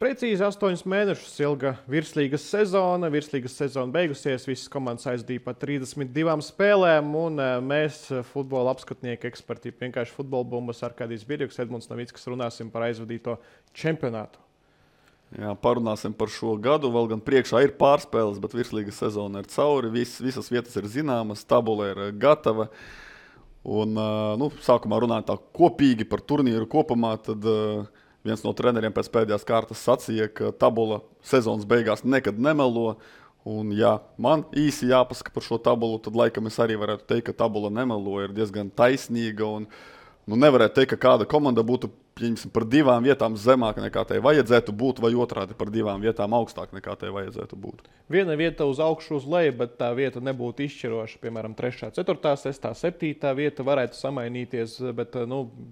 Precīzi 8 mēnešus ilga virslīgas sezona beigusies, visas komandas aizdīja pa 32 spēlēm, un mēs, futbola apskatnieki, eksperti, vienkārši futbola bumbas, Arkādijs Birjuks, Edmunds Navickas, runāsim par aizvadīto čempionātu. Jā, parunāsim par šo gadu, vēl gan priekšā ir pārspēles, bet virslīgas sezona ir cauri, visas vietas ir zināmas, tabula ir gatava, un sākumā runājot tā kopīgi par turnīru kopumā, tad viens no treneriem pēc pēdējās kārtas sacīja, ka tabula sezonas beigās nekad nemelo. Un, ja man īsi jāpasaka par šo tabulu, tad laikam es arī varētu teikt, ka tabula nemelo, ir diezgan taisnīga. Un, nevarētu teikt, ka kāda komanda būtu par 2 vietām zemāk nekā tai vajadzētu būt, vai otrādi par 2 vietām augstāk nekā tai vajadzētu būt. Viena vieta uz augšu, uz leju, bet tā vieta nebūtu izšķiroša. Piemēram, 3., 4., 6., 7. vieta varētu samainīties, bet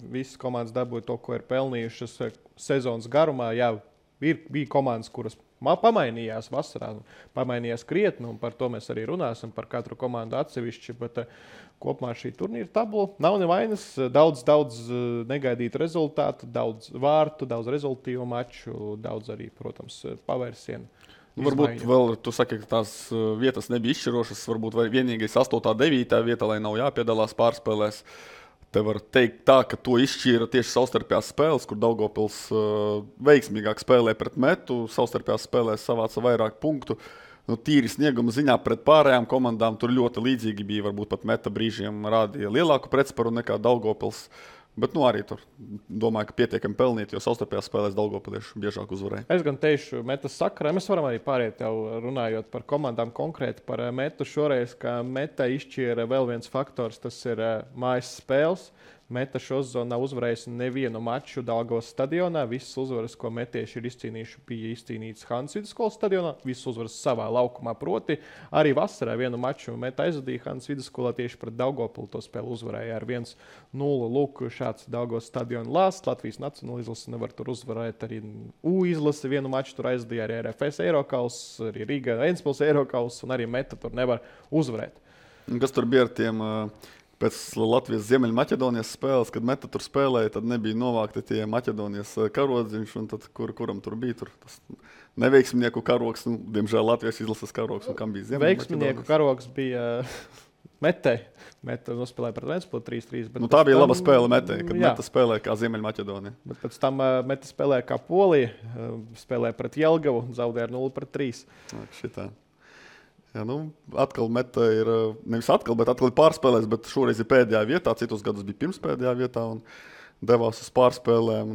visas komandas dabūja to, ko ir pelnījušas sezonas garumā. Jā, bija komandas, kuras pamainījās vasarā, pamainījās krietni, un par to mēs arī runāsim, par katru komandu atsevišķi, bet kopumā šī turnīra tabula nav nevainas, daudz negaidītu rezultātu, daudz vārtu, daudz rezultīvu maču, daudz arī, protams, pavērsienu. Varbūt vēl, tu saki, ka tās vietas nebija izšķirošas, varbūt vienīgais 8., 9. vieta, lai nav jāpiedalās pārspēlēs. Te var teikt tā, ka to izšķīra tieši savstarpējās spēles, kur Daugavpils veiksmīgāk spēlē pret Metu, savstarpējās spēlēs savāca vairāk punktu. Tīri snieguma ziņā pret pārējām komandām tur ļoti līdzīgi bija, varbūt pat Meta brīžiem rādīja lielāku pretsparu nekā Daugavpils. Bet arī tur domāju, ka pietiekami pelnīt, jo savstarpējās spēlēs Daugavpilieši biežāk uzvarēja. Es gan teikšu Metas sakarā, mēs varam arī pāriet jau runājot par komandām konkrēti par Metu šoreiz, ka Meta izšķīra vēl viens faktors, tas ir mājas spēles. Meta šo sezonu nav uzvarējusi nevienu maču Daugavas stadionā. Visas uzvaras, ko metieši ir izcīnījuši, bija izcīnītas Hannes Vidusskolas stadionā. Visas uzvaras savā laukumā, proti arī vasarā vienu maču Meta aizvadīja Hannes Vidusskolā tieši pret Daugavpilu. To spēli uzvarēja ar 1-0. Lūk, šāds Daugavas stadiona lāsts. Latvijas nacionāla izlase nevar tur uzvarēt. Arī U izlase vienu maču tur aizvadīja, arī RFS Eirokauss, arī Riga Ventspils Eirokauss, un arī Meta tur nevar uzvarēt. Kas tur bija ar tiem... Pēc Latvijas Ziemeļmaķedonijas spēles, kad Meta tur spēlēja, tad nebija novākti tie Maķedonijas karodziņš, un tad kuram tur bija tur tas neveiksminieku karogs, diemžēl Latvijas izlases karogs, un kam bija Ziemeļmaķedonijas? Veiksminieku karogs bija Metei. Meta nospēlēja pret Ventspilu 3-3. Tā bija laba spēle Metei, kad Meta spēlēja kā Ziemeļmaķedonija. Bet pēc tam Meta spēlēja kā Polija, spēlēja pret Jelgavu, zaudēja ar 0-3. Šitā. Jā, atkal Meta ir, nevis atkal ir pārspēlēs, bet šoreiz ir pēdējā vietā, citus gadus bija pirms pēdējā vietā un devās uz pārspēlēm.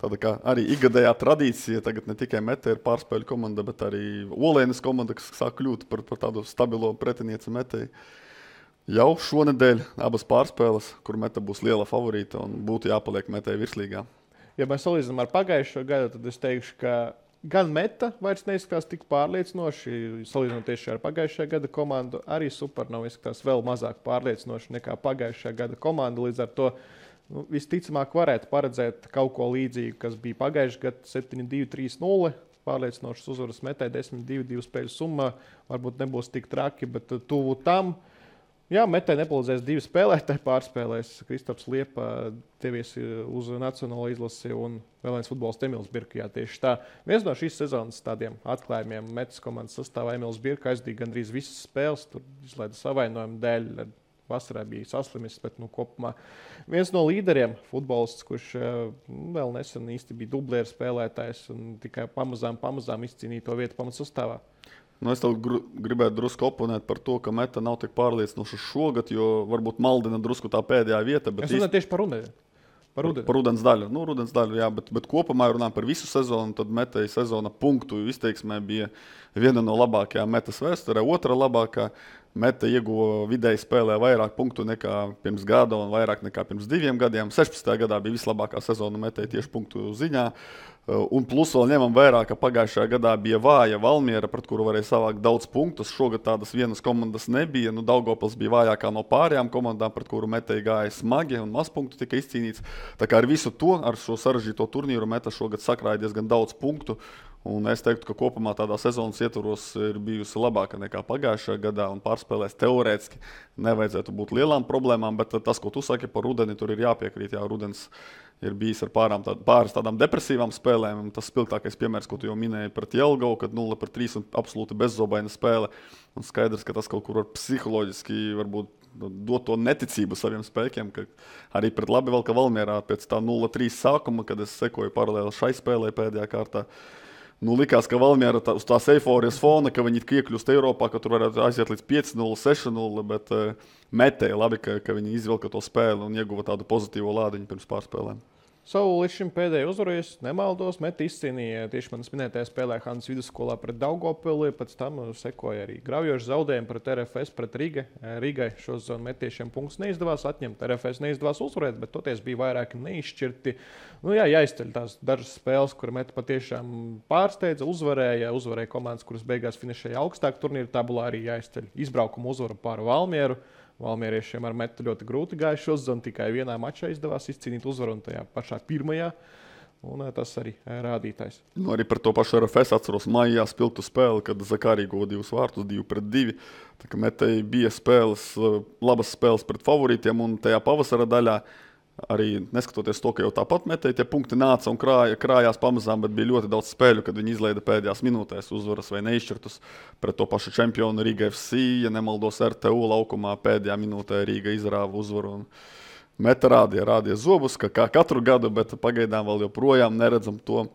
Tāda kā arī ikgadējā tradīcija, tagad ne tikai Meta ir pārspēļu komanda, bet arī Olēnas komanda, kas sāk kļūt par tādu stabilo pretinieci Metei. Jau šonedēļ abas pārspēles, kur Meta būs liela favorīta un būtu jāpaliek Metei virslīgā. Ja mēs salīdzinām ar pagājušo gadu, tad es teikšu, ka gan Meta vairs neizskatās tik pārliecinoši, salīdzinot tieši ar pagājušā gada komandu, arī Supernova izskatās vēl mazāk pārliecinoši nekā pagājušā gada komanda. Līdz ar to visticamāk varētu paredzēt kaut ko līdzīgu, kas bija pagājušā gada 7-2, 3-0. Pārliecinošas uzvaras Metai 10-2, 2 spēļu summā. Varbūt nebūs tik traki, bet tuvu tam. Jā, Metai nepalīdzēs 2 spēlētāji pārspēlēs. Kristaps Liepa devies uz nacionālo izlasi un vēl viens futbolists Emils Birka. Jā, tieši tā. Viens no šīs sezonas tādiem atklājumiem Metas komandas sastāvā Emils Birka aizdīja gandrīz visas spēles. Tur izlaida savainojumu dēļ. Vasarā bija saslimis, bet kopumā viens no līderiem futbolists, kurš vēl nesen īsti bija dublieru spēlētājs un tikai pamazām izcīnīja to vietu pamatsastāvā. Es tev gribētu drusku oponēt par to, ka Meta nav tik pārliecinoša šogad, jo varbūt maldina drusku tā pēdējā vieta. Es runāju tieši par rudeni. Par rudens daļu. Rudens daļu, jā, bet kopumā runājot par visu sezonu, tad Metai sezona punktu izteiksmē bija viena no labākajām Metas vēsturē, otra labākā. Meta ieguva vidēji spēlē vairāk punktu nekā pirms gada un vairāk nekā pirms 2 gadiem. 16. gadā bija vislabākā sezona Metai tieši punktu ziņā. Un plus vēl ņemam vērā, ka pagājušajā gadā bija vāja Valmiera, pret kuru varēja savākt daudz punktus. Šogad tādas vienas komandas nebija. Daugavpils bija vājākā no pārējām komandām, pret kuru Metai gāja smagi un maz punktu tika izcīnīts. Tā kā ar visu to, ar šo sarežģīto turnīru Meta šogad sakrāja diezgan daudz punktu. Un es teiktu, ka kopumā tādā sezonas ietvaros ir bijusi labāka nekā pagājušajā gadā un pārspēlēs teorētiski nevajadzētu būt lielām problēmām, bet tas, ko tu saki par rudeni, tur ir jāpiekrīt. Jā, rudens ir bijis ar pāris tādām depresīvām spēlēm. Tas spilgtākais piemērs, ko tu jau minēji pret Jelgavu, kad 0-3 un absolūti bezzobaina spēle. Un skaidrs, ka tas kaut kur var psiholoģiski varbūt dot to neticību saviem spēkiem, ka arī pret Labi-Valka Valmierā pēc tā 0-3 sākuma, kad es sekoju paralēli šai spēlē pēdējā kārtā, likās, ka Valmiera uz tās eiforijas fona, ka viņi iekļūst Eiropā, ka tur varētu aiziet līdz 5-0, 6-0, bet metēja labi, ka viņi izvilka to spēli un ieguva tādu pozitīvo lādiņu pirms pārspēlēm. Savu līdz šim pēdējo uzvarojas, nemaldos, Meta izcīnīja tieši manas minētajā spēlē Hannes vidusskolā pret Daugavpili, pēc tam sekoja arī graujoši zaudējumi pret RFS, pret Rīgai. Šo sezonu metiešiem punktus neizdevās atņemt, RFS neizdevās uzvarēt, bet toties bija vairāki neizšķirti. Jāizceļ tās dažas spēles, kur Meta patiešām pārsteidza, uzvarēja komandas, kuras beigās finišēja augstāk turnīra tabulā, arī jāizceļ izbraukuma uzvaru pār Valmieru. Valmieriešiem ar Metu ļoti grūti gāja šo sezonu, tikai vienā mačā izdevās izcīnīt uzvaru un tajā pašā pirmajā. Un tas arī rādītājs. Arī par to pašu RFS atceros maijā spilgtu spēli, kad Zakarī guva 2 vārtus, 2-2. Tā kā Metai bija labas spēles pret favorītiem un tajā pavasara daļā. Arī neskatoties to, ka jau tāpat Metai tie punkti nāca un krājās pamazām, bet bija ļoti daudz spēļu, kad viņi izlaida pēdējās minūtēs uzvaras vai neizšķirtus pret to pašu čempionu Riga FC. Ja nemaldos, RTU laukumā pēdējā minūtē Riga izrāva uzvaru. Meta rādīja zobus, kā katru gadu, bet pagaidām vēl joprojām neredzam to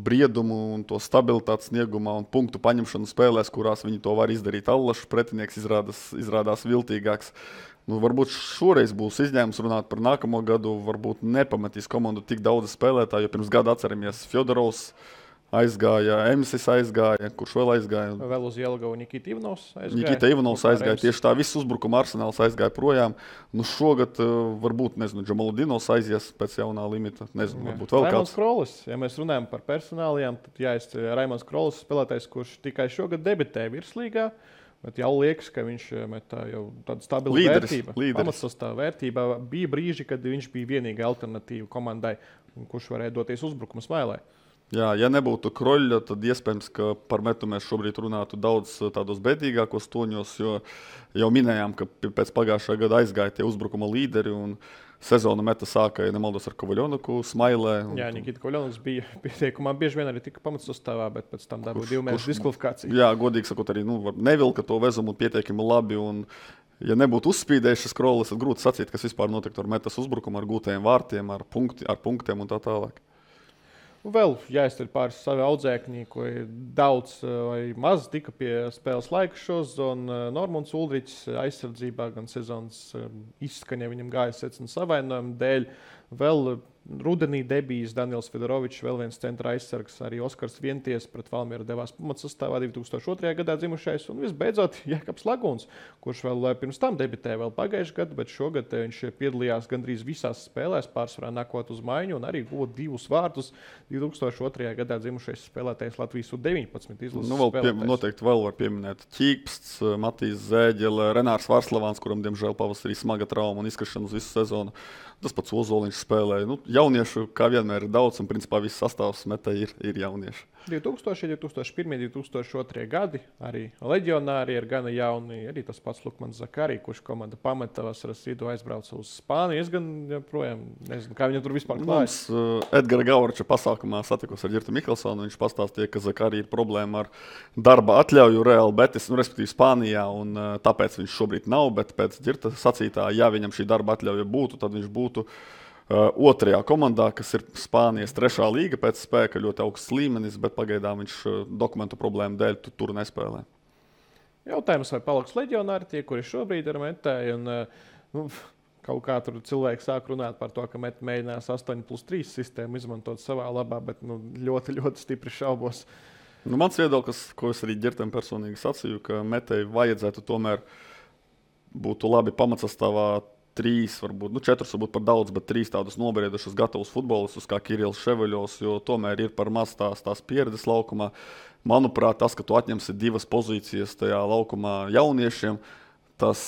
briedumu un to stabilitātes sniegumā un punktu paņemšanu spēlēs, kurās viņi to var izdarīt. Allašs pretinieks izrādās viltīgāks. Varbūt šoreiz būs izņēmums runāt par nākamo gadu. Varbūt nepamatīs komandu tik daudz spēlētāju, jo pirms gada atceramies Fjodorovs aizgāja, Emsis aizgāja, kurš vēl aizgāja? Vēl uz Jelgavu Nikita Ivanovs aizgāja. Nikita Ivanovs aizgāja, tieši tā viss uzbrukuma arsenāls aizgāja projām. Šogad varbūt, Džamaludinovs aizies pēc jaunā limita, varbūt vēl Raimons kāds. Krolis, ja mēs runājam par personālijām, tad jāizceļ Raimons Krolis, spēlētājs, kurš tikai šogad debitē virslīgā. Bet jau liekas, ka viņš metā jau tādu stabilu vērtību. Pamatsastāvā vērtībā bija brīži, kad viņš bija vienīga alternatīva komandai, kurš varēja doties uzbrukuma smailē. Jā, ja nebūtu Kroļa, tad iespējams, ka par Metu mēs šobrīd runātu daudz tādos bēdīgākos toņos, jo jau minējām, ka pēc pagājušā gada aizgāja tie uzbrukuma līderi un sezonu Meta sāka, ja nemaldos, ar Kovaļonuku smailē. Jā, Nikita Kovaļonuks bija pieteikumā bieži vien arī tika pamatsastāvā, bet pēc tam dabūja 2 mēnešu diskvalifikāciju. Jā, godīgi sakot, arī nevilka to vezumu pietiekami labi. Un, ja nebūtu uzspīdējušas Krolis, tad grūti sacīt, kas vispār notiktu ar Metas uzbrukumu, ar gūtajiem vārtiem, ar punktiem un tā tālāk. Vēl jāizceļ pāris savi audzēkņi, ko daudz vai maz tika pie spēles laika šo sezonu. Normons Uldričs aizsardzībā gan sezonas izskaņa viņam gāja secina savainojumu dēļ. Vēl rudenī debijas Daniels Fedorovičs, vēl viens centra aizsargs, arī Oskars Vienties pret Valmieru devās pamatsastāvā 2002. gadā dzimušais. Un visbeidzot Jēkabs Laguns, kurš vēl pirms tam debitēja vēl pagājušajā gadā, bet šogad viņš piedalījās gandrīz visās spēlēs, pārsvarā nākot uz maiņu un arī guva 2 vārtus. 2002. gadā dzimušais spēlētājs Latvijas U-19 izlases spēlētājs. Noteikti vēl var pieminēt Ķīpsts, Matīs Zēģele, Renārs Varslavāns, kuram diemžēl pavasarī smaga trauma un izkrišana uz visu sezonu. Tas pats Ozoliņš spēlēja. Jauniešu, kā vienmēr, ir daudz, un principā viss sastāvs Metai ir jaunieši. 2000, 2001, 2002 gadi arī leģionāri ir gana jauni. Arī tas pats Lukmans Zakarī, kurš komanda pameta vasaras vidū aizbrauca uz Spāniju. Es gan joprojām nezinu, kā viņam tur vispār klājas. Edgara Gaurača pasākumā satikos ar Ģirtu Mikelsonu. Viņš pastāstīja, ka Zakarī ir problēma ar darba atļauju Real Betis, respektīvi Spānijā, un tāpēc viņš šobrīd nav, bet pēc Ģirta sacītā, ja viņam šī darba atļauja būtu, tad viņš būtu otrajā komandā, kas ir Spānijas 3. līga pēc spēka, ļoti augsts līmenis, bet pagaidām viņš dokumentu problēmu dēļ tur nespēlē. Jautājums, vai paliks leģionāri tie, kuri šobrīd ir Metai, un kaut kā tur cilvēki sāk runāt par to, ka Meta mēģinās 8+3 sistēmu izmantot savā labā, bet ļoti, ļoti stipri šaubos. Mans viedoklis, ko es arī Ģirtam personīgi sacīju, ka Metai vajadzētu tomēr būtu labi pamatsastāvā 3, varbūt 4 varbūt par daudz, bet 3 tādus nobriedušus gatavus futbolistus kā Kirills Ševeļovs, jo tomēr ir par maz tās pieredzes laukumā. Manuprāt, tas, ka tu atņemsi 2 pozīcijas tajā laukumā jauniešiem, Tas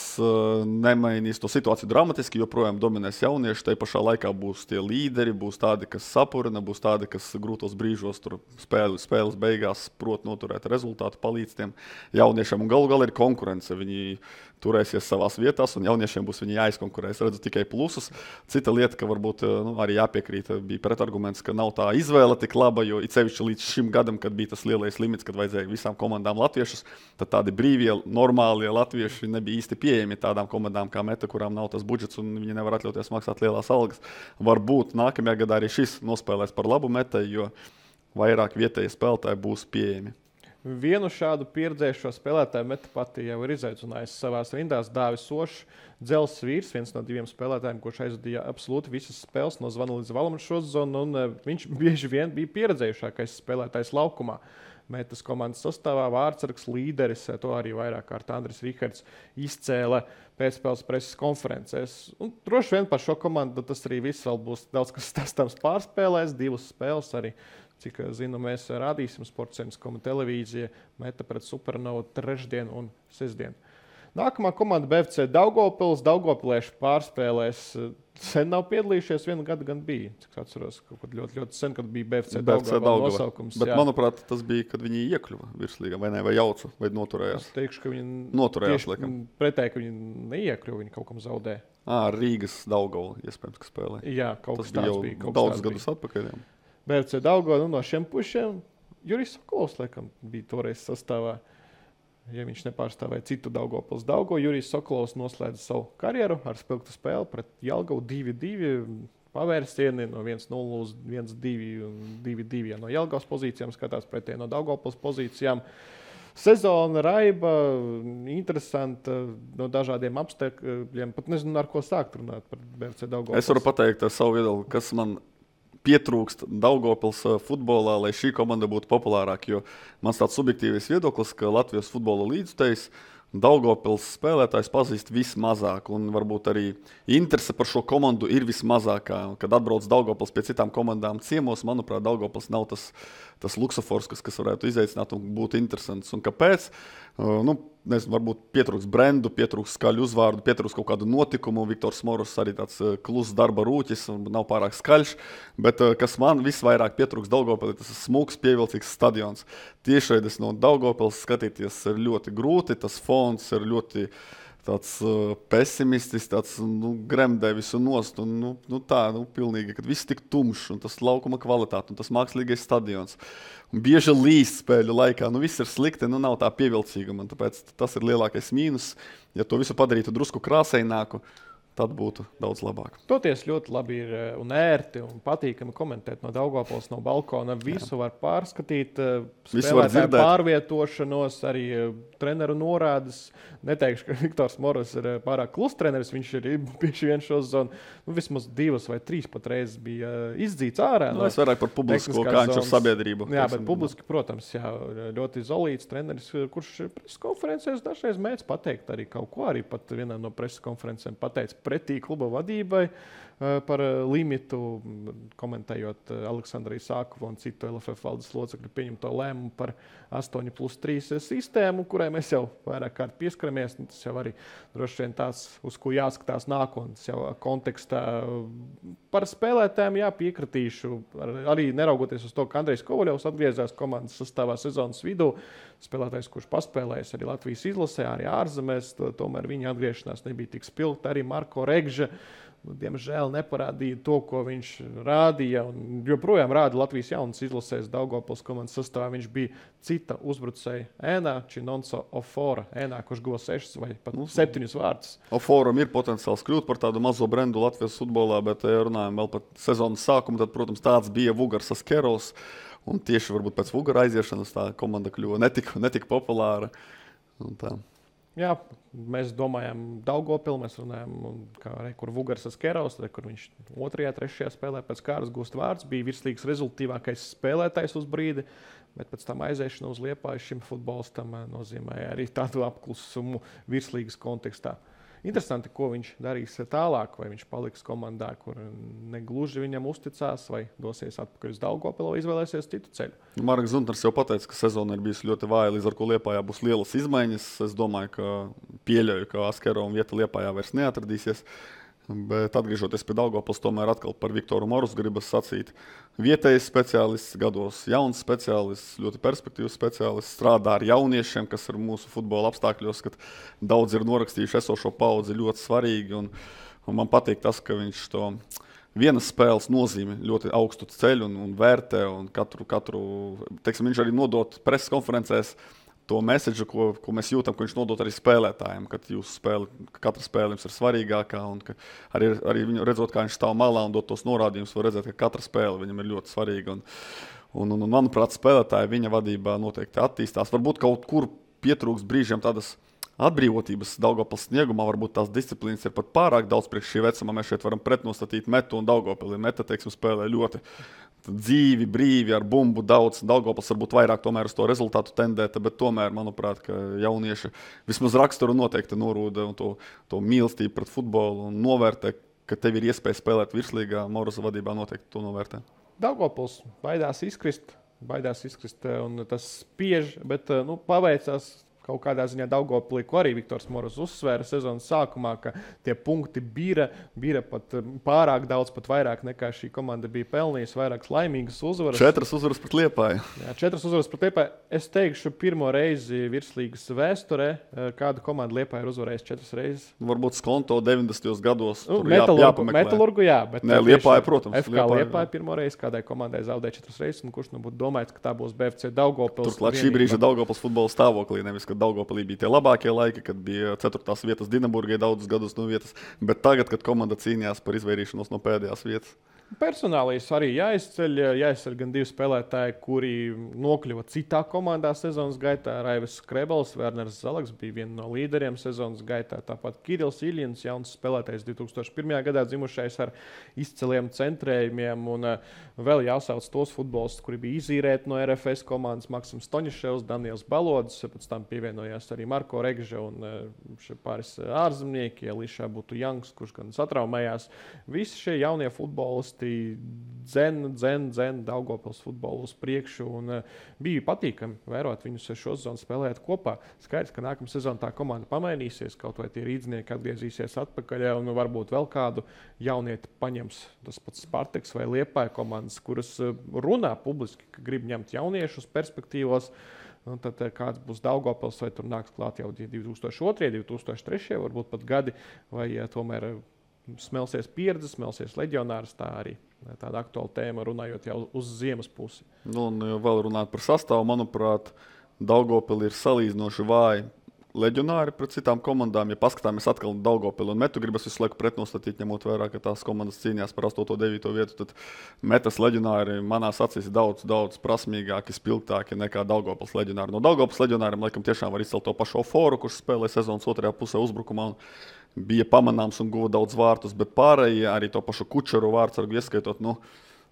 nemainīs to situāciju dramatiski, joprojām dominēs jaunieši. Tajā pašā laikā būs tie līderi, būs tādi, kas sapurina, būs tādi, kas grūtos brīžos tur spēles beigās prot noturēt rezultātu, palīdz tiem jauniešiem. Un galu galā ir konkurence. Viņi turēsies savās vietās, un jauniešiem būs viņi jāizkonkurē. Es redzu tikai plusus. Cita lieta, ka varbūt arī jāpiekrīt, bija pretarguments, ka nav tā izvēle tik laba, jo it sevišķi līdz šim gadam, kad bija tas lielais limits, kad vajadzēja visām komandām latviešus, tad tādi brīvie, normālie latvieši nebija īsti pieejami tādām komandām kā Meta, kurām nav tas budžets un viņi nevar atļauties maksāt lielās algas. Varbūt nākamajā gadā arī šis nospēlēs par labu Metai, jo vairāk vietēji spēlētāji būs pieejami. Vienu šādu pieredzējušo spēlētāju Meta pati jau ir izaicinājusi savās rindās. Dāvis Ošs, Dzels Vīrs, viens no 2 spēlētājiem, kurš aizvadīja absolūti visas spēles no zvana līdz valam šo zonu, un viņš bieži vien bija pieredzējušākais spēlētājs laukumā. Metas komandas sastāvā vārdsargs līderis, to arī vairāk kārt Andris Rihards izcēla pēcspēles preses konferencēs. Un droši vien par šo komandu tas arī viss vēl būs daudz, kas stāstāms pārspēlēs, 2 spēles arī. Cik zinu, mēs rādīsim Sports.com televīzija Meta pret Supernovu trešdien un sestdien. Nākamā komanda BFC Daugavpils. Daugavpilieši pārspēlēs sen nav piedalījušies, vienu gadu gan bija. Cik atceros, kaut kad ļoti, ļoti sen, kad bija BFC Daugava nosaukums. Bet, manuprāt, tas bija, kad viņi iekļuva virslīgā, vai ne, vai jauca, vai noturējās. Es teikšu, ka viņi noturējās, laikam. Pretēji, ka viņi neiekļuva, viņi kaut kam zaudē. Rīgas Daugava, iespējams, ka spēlē. Jā, kaut tas kas tāds bija. Kaut daudzus gadus atpakaļ. Jā. BFC Daugava, no šiem pušiem Jurijs Sokolovs, laikam, bija toreiz sastāvā. Ja viņš nepārstāvēja citu Daugavpils Daugavu, Jurijs Sokolovs noslēdza savu karjeru ar spilgtu spēli pret Jelgavu 2-2. Pavērsieni no 1-0 uz 1-2 un 2-2. Ja no Jelgavas pozīcijām skatās pretēji no Daugavpils pozīcijām. Sezona raiba, interesanta no dažādiem apstākļiem. Pat nezinu, ar ko sākt runāt par BFC Daugavpils. Es varu pateikt savu viedokli, kas man pietrūkst Daugavpils futbolā, lai šī komanda būtu populārāka. Jo mans tāds subjektīvs viedoklis, ka Latvijas futbola līdzutējs Daugavpils spēlētājs pazīst vismazāk, un varbūt arī interese par šo komandu ir vismazākā. Kad atbrauc Daugavpils pie citām komandām ciemos, manuprāt, Daugavpils nav tas luksofors, kas varētu izaicināt un būt interesants. Un kāpēc? Nezinu, varbūt pietrūks brendu, pietrūks skaļu uzvārdu, pietrūks kaut kādu notikumu. Viktors Moros arī tāds kluss darba rūķis un nav pārāk skaļš. Bet kas man visvairāk pietrūks Daugavpilī, tas ir smūgs, pievilcīgs stadions. Tiešraides no Daugavpils skatīties ir ļoti grūti, tas fons ir ļoti tāds pesimistisks, tāds gremdē visu nost. Pilnīgi, kad viss tik tumšs un tas laukuma kvalitāte un tas mākslīgais stadions. Un bieži līst spēļu laikā, viss ir slikti, nav tā pievilcīguma. Tāpēc tas ir lielākais mīnus. Ja to visu padarītu drusku krāsaināku, tad būtu daudz labāk. Toties ļoti labi ir un ērti un patīkami komentēt no Daugavpils, no balkona. Visu var pārskatīt, spēlētāju pārvietošanos, arī treneru norādes. Neteikšu, ka Viktors Moros ir pārāk klus treneris, viņš ir bieži vien šo zonu. Vismaz 2 vai 3 pat reizes bija izdzīts ārā. Es vairāk par publisko, kā viņš ar sabiedrību. Jā, bet publiski, protams, ļoti izolīts treneris, kurš preses konferencēs dažreiz mēdz pateikt arī kaut ko. Arī pat vienā no preses konferencēm pateica pretī kluba vadībai par limitu, komentējot Aleksandru Isākovu un citu LFF valdes locekļu pieņemto lēmumu par 8+3 sistēmu, kurai mēs jau vairāk kārt pieskaramies. Tas jau arī droši vien tās, uz ko jāskatās nākotnes jau kontekstā. Par spēlētājiem piekritīšu, arī neraugoties uz to, ka Andrejs Kovaļovs atgriezās komandas sastāvā sezonas vidū. Spēlētājs, kurš paspēlējis arī Latvijas izlasē, arī ārzemēs, tomēr viņa atgriešanās nebija tik spilgta. Arī Marko Regža, diemžēl, neparādīja to, ko viņš rādīja. Un joprojām rāda Latvijas jaunas izlasēs Daugavpils komandas sastāvā. Viņš bija cita uzbrucēja ēnā, Činonso Ofora ēnā, kurš guva 6 vai pat 7 vārdus. Oforam ir potenciāls kļūt par tādu mazo brendu Latvijas futbolā, bet, ja runājam vēl par sezonas sākumu, tad, protams, tāds bija Vugars Askerovs. Un tieši varbūt pēc Vugara aiziešanas tā komanda kļuva netika populāra. Jā, mēs domājam Daugavpili, mēs runājam, kur Vugars Askerovs, kur viņš 2., 3. spēlē pēc kārtas gūst vārds, bija virslīgas rezultīvākais spēlētājs uz brīdi, bet pēc tam aiziešana uz Liepāju šim futbolistam nozīmēja arī tādu apklusumu virslīgas kontekstā. Interesanti, ko viņš darīs tālāk, vai viņš paliks komandā, kur negluži viņam uzticās, vai dosies atpakaļ uz Daugavpili, vai izvēlēsies citu ceļu. Marks Zuntners jau pateica, ka sezona ir bijusi ļoti vāja, līdz ar ko Liepājā būs lielas izmaiņas. Es domāju, ka pieļauju, ka Askerova vieta Liepājā vairs neatradīsies. Bet atgriežoties pie Daugavpils, tomēr atkal par Viktoru Morusu gribas sacīt. Vietējais speciālists, gados jauns speciālists, ļoti perspektīvs speciālists, strādā ar jauniešiem, kas ir mūsu futbola apstākļos, kad daudz ir norakstījuši esošo paudzi ļoti svarīgi. Un man patīk tas, ka viņš to vienas spēles nozīmi ļoti augstu ceļ un vērtē. Un teiksim, viņš arī nodot preses konferencēs to mēsēdžu, ko mēs jūtam, ko viņš nodot arī spēlētājiem, kad katra spēle jums ir svarīgākā, un ka arī viņu redzot, kā viņš stāv malā un dot tos norādījumus, var redzēt, ka katra spēle viņam ir ļoti svarīga. Un manuprāt, spēlētāji viņa vadībā noteikti attīstās. Varbūt kaut kur pietrūks brīžiem tādas atbrīvotības Daugavpils sniegumā, varbūt tās disciplīnas ir pat pārāk daudz priekš šī vecuma. Mēs šeit varam pretnostatīt Metu un Daugavpili. Meta, teiksim, spēlē ļoti dzīvi, brīvi, ar bumbu daudz. Daugavpils varbūt vairāk tomēr uz to rezultātu tendēta, bet tomēr, manuprāt, ka jaunieši vismaz raksturu noteikti norūda un to mīlestību pret futbolu un novērtē, ka tev ir iespēja spēlēt virslīgā. Morusa vadībā noteikti to novērtē. Daugavpils baidās izkrist, un tas spiež, bet paveicās. Kaut kādā ziņā Daugavpilī, ko arī Viktors Morus uzsvēra sezonas sākumā, ka tie punkti bija pat pārāk daudz, pat vairāk nekā šī komanda bija pelnījusi, vairākas laimīgas uzvaras. 4 uzvaras pret Liepāju. Jā, 4 uzvaras pret Liepāju. Es teikšu, pirmo reizi virslīgas vēsturē, kāda komanda Liepāja ir uzvarējusi 4 reizes. Varbūt Skonto 90. gados. Metalurgu, jā. Bet ne, Liepāja, protams. FK Liepāja pirmo reizi kādai komandai zaudēja 4 reizes, un kurš būtu domājis, ka tā būs BFC Daugavpils. Turklāt šī brīža Daugavpils futbola stāvoklī, nevis, ka Daugavpilī bija tie labākie laiki, kad bija 4. vietas Dinaburgai daudzus gadus no vietas, bet tagad, kad komanda cīnījās par izvairīšanos no pēdējās vietas. Personālīs arī jāizceļ gan 2 spēlētāji, kuri nokļuva citā komandā sezonas gaitā. Raivis Skrebels, Werners Zalaks bija viena no līderiem sezonas gaitā. Tāpat Kirils Iļins, jauns spēlētājs 2001. gadā dzimušais ar izceliem centrējumiem. Un vēl jāsauc tos futbolistus, kuri bija izīrēti no RFS komandas. Maksims Toņiševs, Daniels Balodis, pēc tam pievienojās arī Marko Regža un pāris ārzemnieki, Elīšā būtu Jangs, kurš gan satraumējās. Visi šie jaunie futbolisti dzen Daugavpils futbolu uz priekšu, un bija patīkami vērot viņus šo sezonu spēlēt kopā. Skaidrs, ka nākamā sezona tā komanda pamainīsies, kaut vai tie rīdznieki atgriezīsies atpakaļ, un varbūt vēl kādu jaunieti paņems tas pats Spartaks vai Liepāja komandas, kuras runā publiski, ka grib ņemt jauniešus perspektīvos. Un tad kāds būs Daugavpils, vai tur nāks klāt jau 2002, 2003, varbūt pat gadi, vai tomēr smelsies pieredze, smelsies leģionārs, tā arī tāda aktuāla tēma, runājot jau uz ziemas pusi. Un vēl runāt par sastāvu, manuprāt, Daugavpili ir salīdzinoši vāji leģionāri pret citām komandām. Ja paskatāmies atkal Daugavpili un Metu, gribas visu laiku pretnostatīt, ņemot vērā, ka tās komandas cīnījās par 8. un 9. vietu, tad Metas leģionāri manās acīs ir daudz prasmīgāki, spilgtāki nekā Daugavpils leģionāri. No Daugavpils leģionāriem laikam tiešām var izcelt to pašu Oforu, kurš spēlē sezonas otrajā pusē uzbrukumā un bija pamanāms un guva daudz vārtus, bet pārējie arī to pašu Kučeru vārdsargu ieskaitot,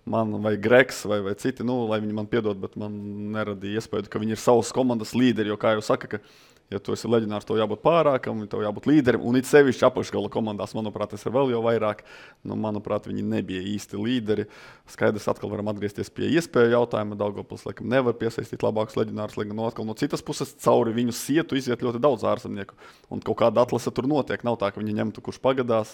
man vai Greks vai citi, lai viņi man piedod, bet man neradīja iespēju, ka viņi ir savas komandas līderi, jo kā jau saka, ka ja tu esi leģionārs, tev jābūt pārākam, tev jābūt līderim, un it sevišķi apakšgala komandās, manuprāt, tas ir vēl jau vairāk. Manuprāt, viņi nebija īsti līderi. Skaidrs, atkal varam atgriezties pie iespēju jautājuma. Daugavpils, laikam, nevar piesaistīt labākus leģionārus, lai gan atkal no citas puses cauri viņu sietu iziet ļoti daudz ārzemnieku. Un kaut kāda atlase tur notiek. Nav tā, ka viņi ņemtu, kurš pagadās.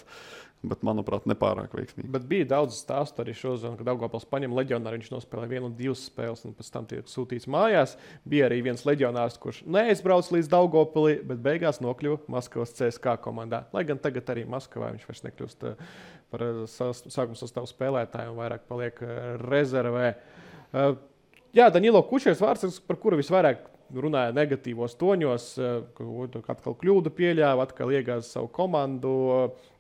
Bet, manuprāt, nepārāk veiksmīgi. Bet bija daudz stāstu arī šodien, kad Daugavpils paņem leģionāru, viņš nospēlēja 1 un 2 spēles, un pēc tam tiek sūtīts mājās. Bija arī viens leģionārs, kurš neaizbrauc līdz Daugavpilī, bet beigās nokļuva Maskavas CSKA komandā. Lai gan tagad arī Maskavā viņš vairs nekļūst par sākuma sastāvu spēlētāju un vairāk paliek rezervē. Jā, Danilo Kučers vārds, par kuru visvairāk runāja negatīvos toņos, ka atkal kļūdu pieļāva, atkal iegāza savu komandu.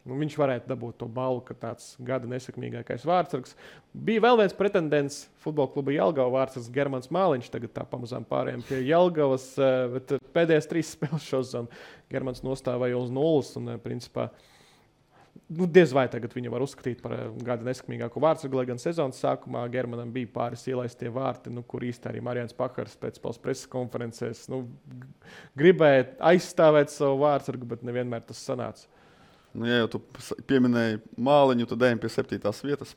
Viņš varētu dabūt to balvu, ka tāds gada nesekmīgākais vārdsargs. Bija vēl viens pretendents futbola kluba Jelgava vārdsargs Germans Māliņš. Tagad tā pamazām pārējām pie Jelgavas, bet pēdējās 3 spēles šodien Germans nostāvēja uz 0 un principā diez vai tagad viņu var uzskatīt par gada nesekmīgāko vārdsargu, lai gan sezonas sākumā Germanam bija pāris ielaistie vārti, kur īsti arī Marijans Pakars pēc preses konferencēs gribēja aizstāvēt savu vārdsargu, bet nevienmēr tas sanāca. Nu, ja jau tu pieminēji Māliņu, tad ejam pie 7. vietas.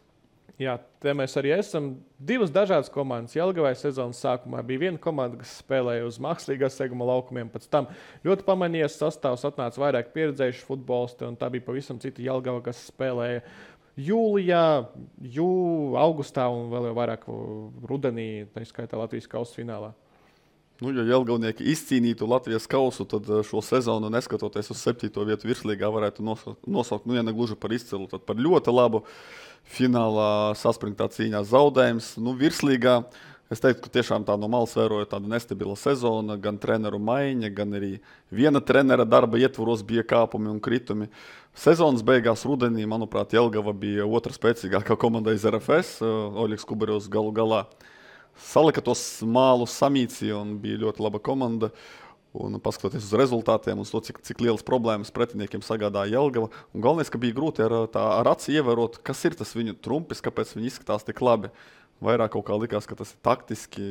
Jā, te mēs arī esam divas dažādas komandas. Jelgavai sezonas sākumā bija viena komanda, kas spēlēja uz mākslīgā seguma laukumiem. Pēc tam ļoti pamanījies sastāvs, atnāca vairāk pieredzējuši futbolisti, un tā bija pavisam cita Jelgava, kas spēlēja jūlijā, augustā un vēl jau vairāk rudenī, tā skaitā Latvijas kausa finālā. Nu, ja Jelgavnieki izcīnītu Latvijas kausu, tad šo sezonu, neskatoties uz 7. vietu virslīgā, varētu nosaukt, ja ne gluži par izcilu, tad par ļoti labu. Finālā saspringtā cīņā zaudējums. Virslīgā es teiktu, ka tiešām tā no malas vēroja tāda nestabila sezona, gan treneru maiņa, gan arī viena trenera darba ietvaros bija kāpumi un kritumi. Sezonas beigās rudenī, manuprāt, Jelgava bija otra spēcīgākā komanda iz RFS, Oļegs Kuberevs galu galā salika tos mālus, samīcīja un bija ļoti laba komanda. Un paskatoties uz rezultātiem un to, cik lielas problēmas pretiniekiem sagādāja Jelgava. Un galvenais, ka bija grūti ar aci ievērot, kas ir tas viņu trumpis, kāpēc viņi izskatās tik labi. Vairāk kaut kā likās, ka tas ir taktiski,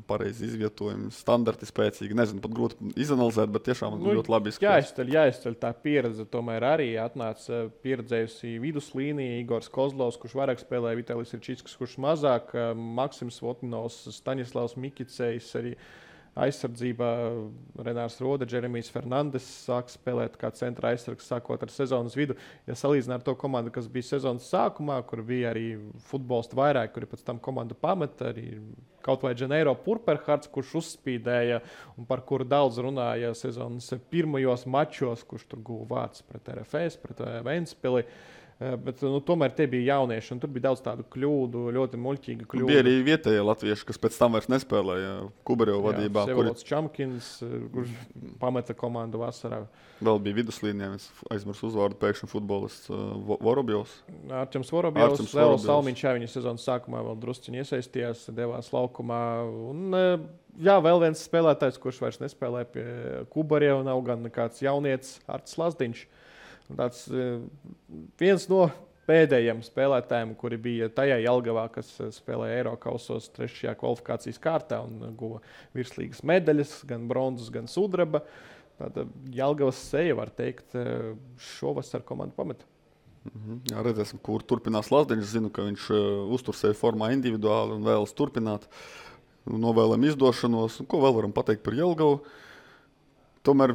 pareizi izvietojumi, standarti spēcīgi. Nezinu, pat grūti izanalizēt, bet tiešām ļoti labi izskatās. Jāizceļ tā pieredze. Tomēr arī atnāca pieredzējusi viduslīnija Igors Kozlovs, kurš vairāk spēlēja, Vitalijs Irčīskis, kurš mazāk, Maksims Votninovs, Staņislavs Mikicējs arī. Aizsardzībā Renārs Rode, Džeremijs Fernandes sāk spēlēt kā centra aizsargs sākot ar sezonas vidu. Ja salīdzinām ar to komandu, kas bija sezonas sākumā, kur bija arī futbolisti vairāk, kuri pēc tam komandu pameta, arī kaut vai Dženeiro Purperhards, kurš uzspīdēja un par kuru daudz runāja sezonas pirmajos mačos, kurš tur guva vārds pret RFS, pret Ventspili. Bet tomēr tie bija jaunieši, un tur bija daudz tādu kļūdu, ļoti muļķīgu kļūdu. Bija arī vietējie latvieši, kas pēc tam vairs nespēlēja Kubereva vadībā. Sevolds Čamkins, kurš pameta komandu vasarā. Vēl bija viduslīnijā, es aizmirsu uzvārdu, pēkšņi futbolists Vorobjovs. Arčems Vorobjovs, Lēls Salmiņš, viņa sezonas sākumā vēl drusciņi iesaistījās, devās laukumā. Un, vēl viens spēlētājs, kurš vairs nespēlē pie Kubereva, nav gan kāds jaunietis Artis Lazdiņš. Tāds viens no pēdējiem spēlētājiem, kuri bija tajā Jelgavā, kas spēlēja Eirokausos 3. kvalifikācijas kārtā un guva virslīgas medaļas, gan bronzas, gan sudraba. Tāda Jelgavas seja, var teikt, šovasar komandu pameta. Jā, redzēsim, kur turpinās Lazdiņš. Zinu, ka viņš uztur sevi formā individuāli un vēlas turpināt. Novēlam izdošanos. Ko vēl varam pateikt par Jelgavu? Tomēr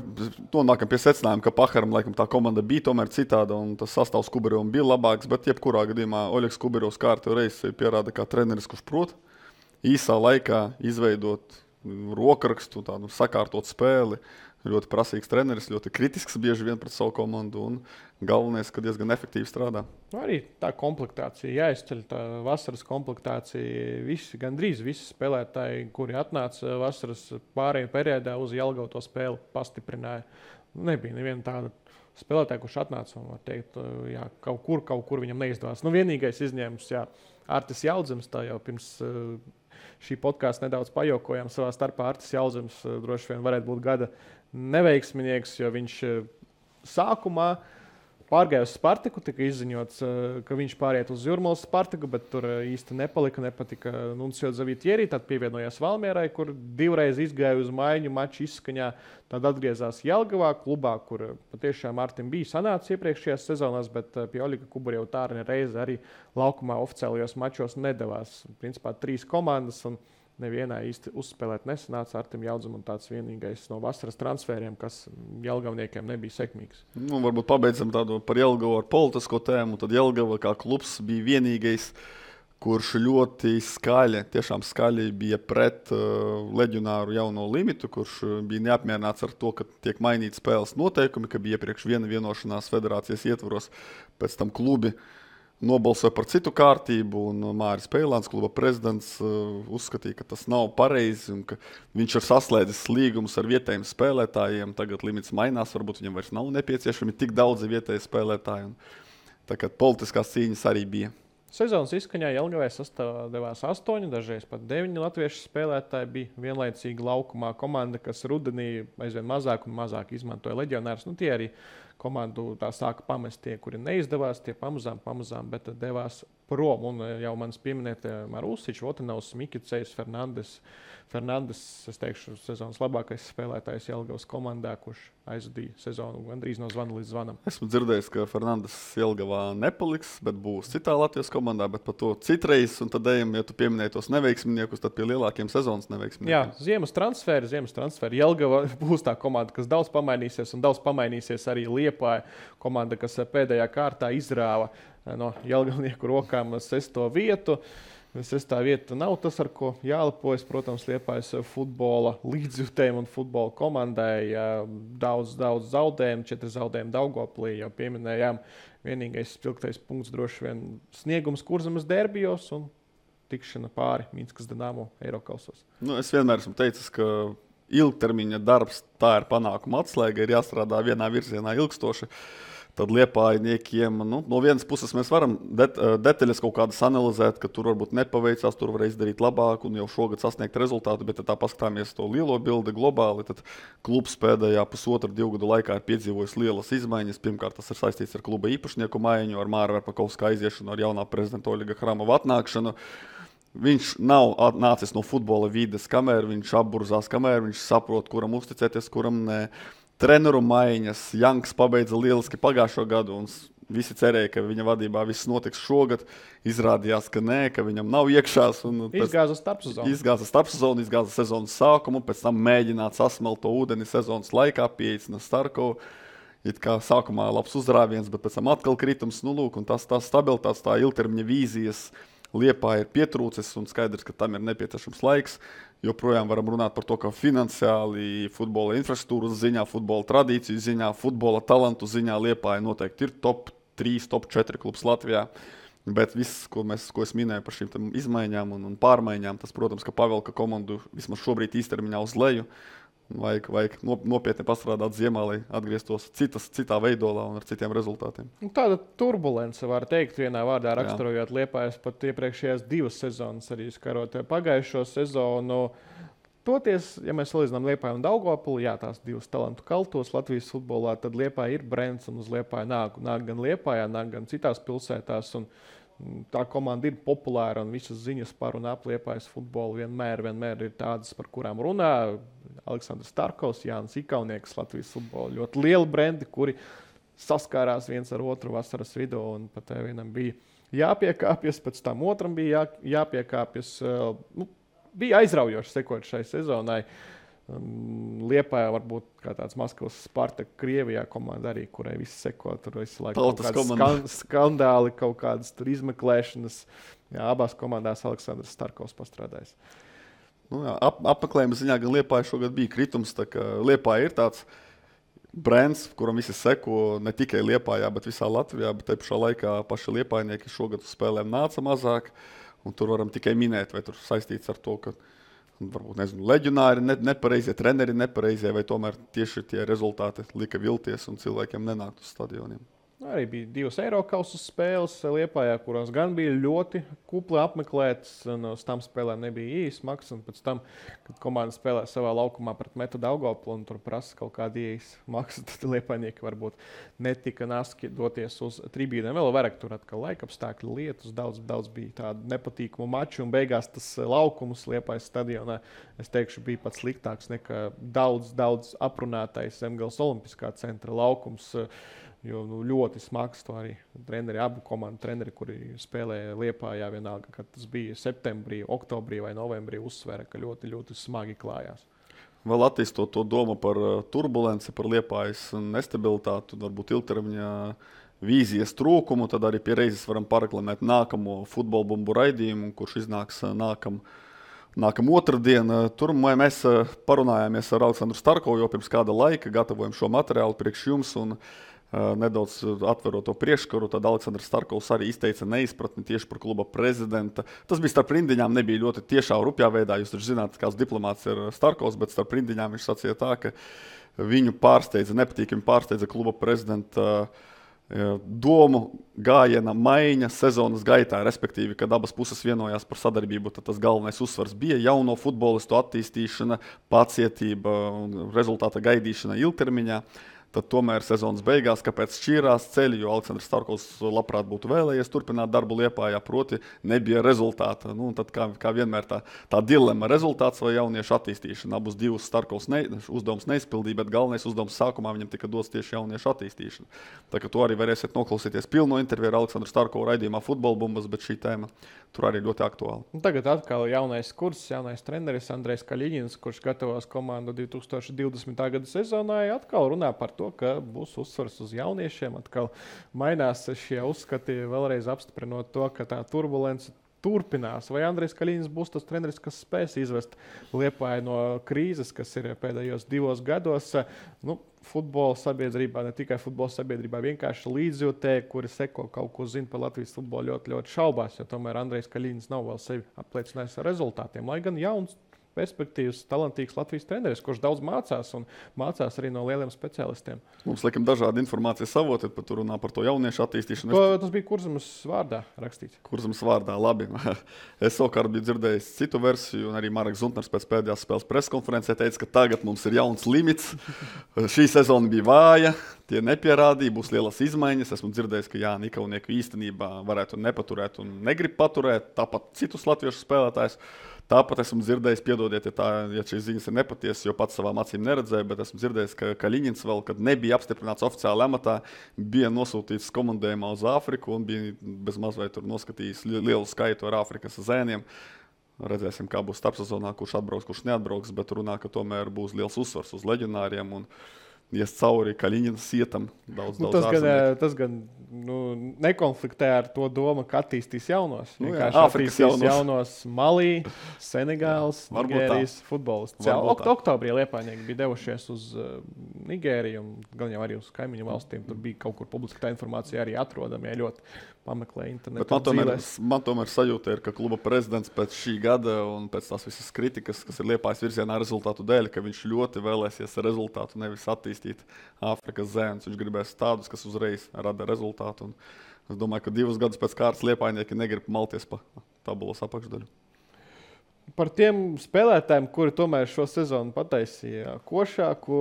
nonākam pie secinājuma, ka Paharam laikam tā komanda bija tomēr citāda un tas sastāvs Kuberevam bija labāks, bet jebkurā gadījumā Oļegs Kuberevs kārtējo reizi pierāda kā treneris, kurš prot īsā laikā izveidot rokrakstu, tādu sakārtot spēli. Ļoti prasīgs treneris, ļoti kritisks bieži vien pret savu komandu un galvenais, ka diezgan efektīvi strādā. Arī tā komplektācija jāizceļ, tā vasaras komplektācija. Gandrīz visi spēlētāji, kuri atnāca vasaras pārējā periodā uz Jelgavu to spēli pastiprināja. Nebija neviena tāda spēlētāja, kurš atnāca un var teikt, jā, kaut kur viņam neizdevās. Vienīgais izņēmums, Artis Jaudzems, tā jau pirms šī podkāsta nedaudz pajokojām savā starpā. Artis Jaudzems droši vien varētu būt gada neveiksminieks, jo viņš sākumā pārgāja uz Spartaku, tika izziņots, ka viņš pāriet uz Jūrmalas Spartaku, bet tur īsti nepatika Nuncio Zavitieri, tad pievienojās Valmierai, kur divreiz izgāja uz maiņu maču izskaņā, tad atgriezās Jelgavā klubā, kur patiešām Artim bija sanācis iepriekšējās sezonās, bet pie Oļega Kubereva tā reize arī laukumā oficiālajos mačos nedavās. Principā 3 komandas un nevienā īsti uzspēlēt nesanāca. Artim Jaudzam un tāds vienīgais no vasaras transferiem, kas jelgavniekiem nebija sekmīgs. Varbūt pabeidzam tādu par Jelgavu ar politisko tēmu. Tad Jelgava kā klubs bija vienīgais, kurš ļoti skaļi, tiešām skaļi bija pret leģionāru jauno limitu, kurš bija neapmierināts ar to, ka tiek mainīti spēles noteikumi, ka bija iepriekš viena vienošanās federācijas ietvaros, pēc tam klubi nobalsoja par citu kārtību, un Māris Peilāns, kluba prezidents, uzskatīja, ka tas nav pareizi un ka viņš ir saslēdzis līgumus ar vietējiem spēlētājiem. Tagad limits mainās, varbūt viņam vairs nav nepieciešami tik daudzi vietēji spēlētāji. Tā kā politiskās cīņas arī bija. Sezonas izskaņā Jelgavai sastāvdevās 8, dažreiz pat 9 latviešu spēlētāji. Bija vienlaicīgi laukumā komanda, kas rudenī aizvien mazāk un mazāk izmantoja leģionārus. Tie arī komandu tā sāka pamest tie, kuri neizdevās, tie pamazām, bet devās prom. Un jau manis pieminētie Marusičs, Votanovs, Mikicejs, Fernandes, es teikšu, sezonas labākais spēlētājs Jelgavas komandā, kurš aizvadīja sezonu gandrīz no zvana līdz zvanam. Esmu dzirdējis, ka Fernandes Jelgavā nepaliks, bet būs citā Latvijas komandā, bet par to citreiz, un tad ejam, ja tu pieminēji tos neveiksminiekus, tad pie lielākiem sezonas neveiksminiekiem. Jā, ziemas transferi. Jelgava būs tā komanda, kas daudz pamainīsies, un daudz pamainīsies arī Liepāja komanda, kas pēdējā kārtā izrāva no jelgavnieku rokām 6. vietu. 6. vieta nav tas, ar ko jālepojas. Protams, Liepājas futbola līdzjutējiem un futbola komandai daudz zaudējumu, 4 zaudējumu Daugavpilī jau pieminējām. Vienīgais spilgtais punkts droši vien sniegums Kurzemes derbijos un tikšana pāri Minskas Dinamo Eirokausos. Es vienmēr esmu teicis, ka ilgtermiņa darbs tā ir panākuma atslēga, ir jāstrādā vienā virzienā ilgstoši. Tad Liepājniekiem, no vienas puses mēs varam detaļas kaut kādas analizēt, ka tur varbūt nepaveicās, tur var izdarīt labāk un jau šogad sasniegt rezultātu, bet tā paskatāmies to lielo bildi globāli, tad klubs pēdējā 1,5–2 gadu laikā ir piedzīvojis lielas izmaiņas. Pirmkārt, tas ir saistīts ar kluba īpašnieku maiņu, ar Māra Verpakovska aiziešanu, ar jaunā prezidenta Oļega Hramova atnākšanu. Viņš nav nācis no futbola vides, kamēr viņš apburzās, kamēr viņš saprot, kuram uzticēties, kuram ne. Treneru maiņas, Janks pabeidza lieliski pagājušo gadu, un visi cerēja, ka viņa vadībā viss notiks šogad. Izrādījās, ka nē, ka viņam nav iekšās. Izgāza starpsezonu. Izgāza sezonas sākumu, pēc tam mēģināt sasmelt to ūdeni sezonas laikā, pieeicina Starkovu. It kā sākumā labs uzrāviens, bet pēc tam atkal kritums. Un tas stabilitātes, tā ilgtermiņa vīzijas Liepāja ir pietrūcis, un skaidrs, ka tam ir nepieciešams laiks. Joprojām varam runāt par to, ka finansiāli, futbola infrastruktūras ziņā, futbola tradīciju ziņā, futbola talantu ziņā Liepāja noteikti ir top 3, top 4 klubs Latvijā. Bet viss, ko es minēju par šīm izmaiņām un pārmaiņām, tas, protams, ka pavelka komandu vismaz šobrīd īstermiņā uz leju. Vajag nopietni pastrādāt ziemā, lai atgrieztos citā veidolā un ar citiem rezultātiem. Tāda turbulence, var teikt, vienā vārdā raksturojot Liepājas pat iepriekšējās 2 sezonas, arī skarot pagājušo sezonu. Toties, ja mēs salīdzinām Liepāju un Daugavpili, jā, tās 2 talantu kaltos Latvijas futbolā, tad Liepāja ir brends un uz Liepāju nāk gan Liepājā, nāk gan citās pilsētās. Un tā komanda ir populāra un visas ziņas par un ap Liepājas futbolu vienmēr ir tādas, par kurām runā. Aleksandrs Starkovs, Jānis Ikaunieks, Latvijas futbola ļoti lieli brendi, kuri saskārās viens ar otru vasaras vidū, un pat vienam bija jāpiekāpjas, pēc tam otram bija jāpiekāpjas. Bija aizraujoši sekot šai sezonai. Liepājā varbūt kā tāds Maskavas Spartak Krievijā komanda arī, kurai viss seko, tur visu laiku kaut kādi skandāli, kaut kādas tur izmeklēšanas. Jā, abās komandās Aleksandrs Starkovs pastrādājis. Apmeklējuma ziņā gan Liepāja šogad bija kritums, tā ka Liepāja ir tāds brands, kuram visi seko ne tikai Liepājā, bet visā Latvijā, bet te pašā laikā paši liepājnieki šogad uz spēlēm nāca mazāk, un tur varam tikai minēt, vai tur saistīts ar to, ka varbūt, leģionāri nepareizie, treneri nepareizie, vai tomēr tieši tie rezultāti lika vilties un cilvēkiem nenākt uz stadioniem. Arī bija 2 Eirokausu spēles Liepājā, kurās gan bija ļoti kupli apmeklētas, un uz tām spēlēm nebija īsts maks, un pēc tam, kad komanda spēlē savā laukumā pret Metu Daugavpili un tur prasa kaut kādu īsts maksu, tad liepājnieki varbūt netika naski doties uz tribīnēm. Vēl vairāk tur atkal laikapstākļu lietus, daudz bija tādu nepatīkamu maču, un beigās tas laukums Liepājas stadionā, es teikšu, bija pat sliktāks nekā daudz aprunātais Zemgales Olimpiskā centra laukums. Jo ļoti smags to arī abu komandu treneri, kuri spēlēja Liepājā vienalga, kad tas bija septembrī, oktobrī vai novembrī, uzsvēra, ka ļoti smagi klājās. Vēl attīstot to domu par turbulenci, par Liepājas nestabilitāti, varbūt ilgtermiņā vīzijas trūkumu, tad arī pie reizes varam pareklamēt nākamo futbola bumbu raidījumu, kurš iznāks nākam otrdien. Tur mēs parunājāmies ar Aleksandru Starkovu jau pirms kāda laika, gatavojam šo materiālu priekš jums un nedaudz atverot to priekškaru, tad Aleksandrs Starkovs arī izteica neizpratni tieši par kluba prezidenta. Tas bija starp rindiņām, nebija ļoti tiešā rupjā veidā. Jūs taču zināt, kāds diplomāts ir Starkovs, bet starp rindiņām viņš sacīja tā, ka viņu nepatīkami pārsteidza kluba prezidenta domu gājiena maiņa sezonas gaitā, respektīvi, kad abas puses vienojās par sadarbību, tad tas galvenais uzsvars bija jauno futbolistu attīstīšana, pacietība un rezultāta gaidīšana ilgtermiņā. Tad tomēr sezonas beigās, kāpēc šķīrās ceļi, jo Aleksandrs Starkovs labprāt būtu vēlējies turpināt darbu Liepājā, proti nebija rezultāta. Nu, tad kā vienmēr tā dilemma rezultāts vai jauniešu attīstīšana. Abus divus Starkovs uzdevums neizpildīja, bet galvenais uzdevums sākumā viņam tika dots tieši jauniešu attīstīšana. Tā kā to arī varēsiet noklausīties pilno interviju ar Aleksandru Starkovu raidījumā Futbola bumbas, bet šī tēma tur arī ļoti aktuāla. Tagad atkal jaunais kurs, jaunais treneris Andrejs Kaļiņins, kurš gatavos komandu 2020. gada sezonai, atkal runā par to, ka būs uzsvars uz jauniešiem. Atkal mainās šie uzskati, vēlreiz apstiprinot to, ka tā turbulence turpinās. Vai Andrejs Kaļiņins būs tas treneris, kas spēs izvest Liepāju no krīzes, kas ir pēdējos 2 gados? Futbola sabiedrībā, ne tikai futbola sabiedrībā, vienkārši līdzjūtēji, kuri seko kaut ko zina par Latvijas futbolu, ļoti, ļoti šaubās, jo tomēr Andrejs Kaļiņins nav vēl sevi apliecinājis ar rezultātiem. Lai gan jauns, perspektīvs, talantīgs Latvijas treneris, kurš daudz mācās un mācās arī no lieliem speciālistiem. Mums liekam dažādi informācijas avoti, pat runā par to jauniešu attīstīšanu. Tas bija Kurzemes vārdā rakstīts. Kurzemes vārdā, labi. Es savukārt biju dzirdējis citu versiju, un arī Mareks Zuntners pēc pēdējās spēles preskonferencē teica, ka tagad mums ir jauns limits. Šī sezona bija vāja, tie nepierādīja, būs lielas izmaiņas. Esmu dzirdējis, ka Jānis Ikaunieks īstenībā varētu nepaturēt un negrib paturēt, tāpat citus latviešu spēlētājus. Tāpat esmu dzirdējis, piedodiet, ja šīs ziņas ir nepatiesas, jo pats savām acīm neredzēju, bet esmu dzirdējis, ka Kaļiņins vēl, kad nebija apstiprināts oficiāli amatā, bija nosūtīts komandējumā uz Āfriku un bija bez mazliet tur noskatījis lielu skaitu ar Āfrikas zēniem. Redzēsim, kā būs starpsezonā, kurš atbrauks, kurš neatbrauks, bet runā, ka tomēr būs liels uzsvars uz leģionāriem un ies cauri Kaļiņina sietam daudz tas gan nekonfliktē ar to domu, ka attīstīs jaunos. Āfrikas jaunos Malī, Senegāls, Nigērijas futbolists. Oktobrī Liepājnieki bija devušies uz Nigēriju un gan jau arī uz kaimiņu valstīm. Tur bija kaut kur publiski tā informācija arī atrodama, ja ļoti pameklē internetu. Man tomēr sajūta ir, ka kluba prezidents pēc šī gada un pēc tās visas kritikas, kas ir Liepājas virzienā rezultātu dēļ, ka viņš ļoti vēlēsies rezultātu, nevis attīstīt Āfrikas zēnus. Viņš gribēs tādus, kas uzreiz rada rezultātu. Un es domāju, ka 2 gadus pēc kārtas Liepājnieki negrib malties pa tabulas apakšdaļu. Par tiem spēlētājiem, kuri tomēr šo sezonu pataisīja košāku,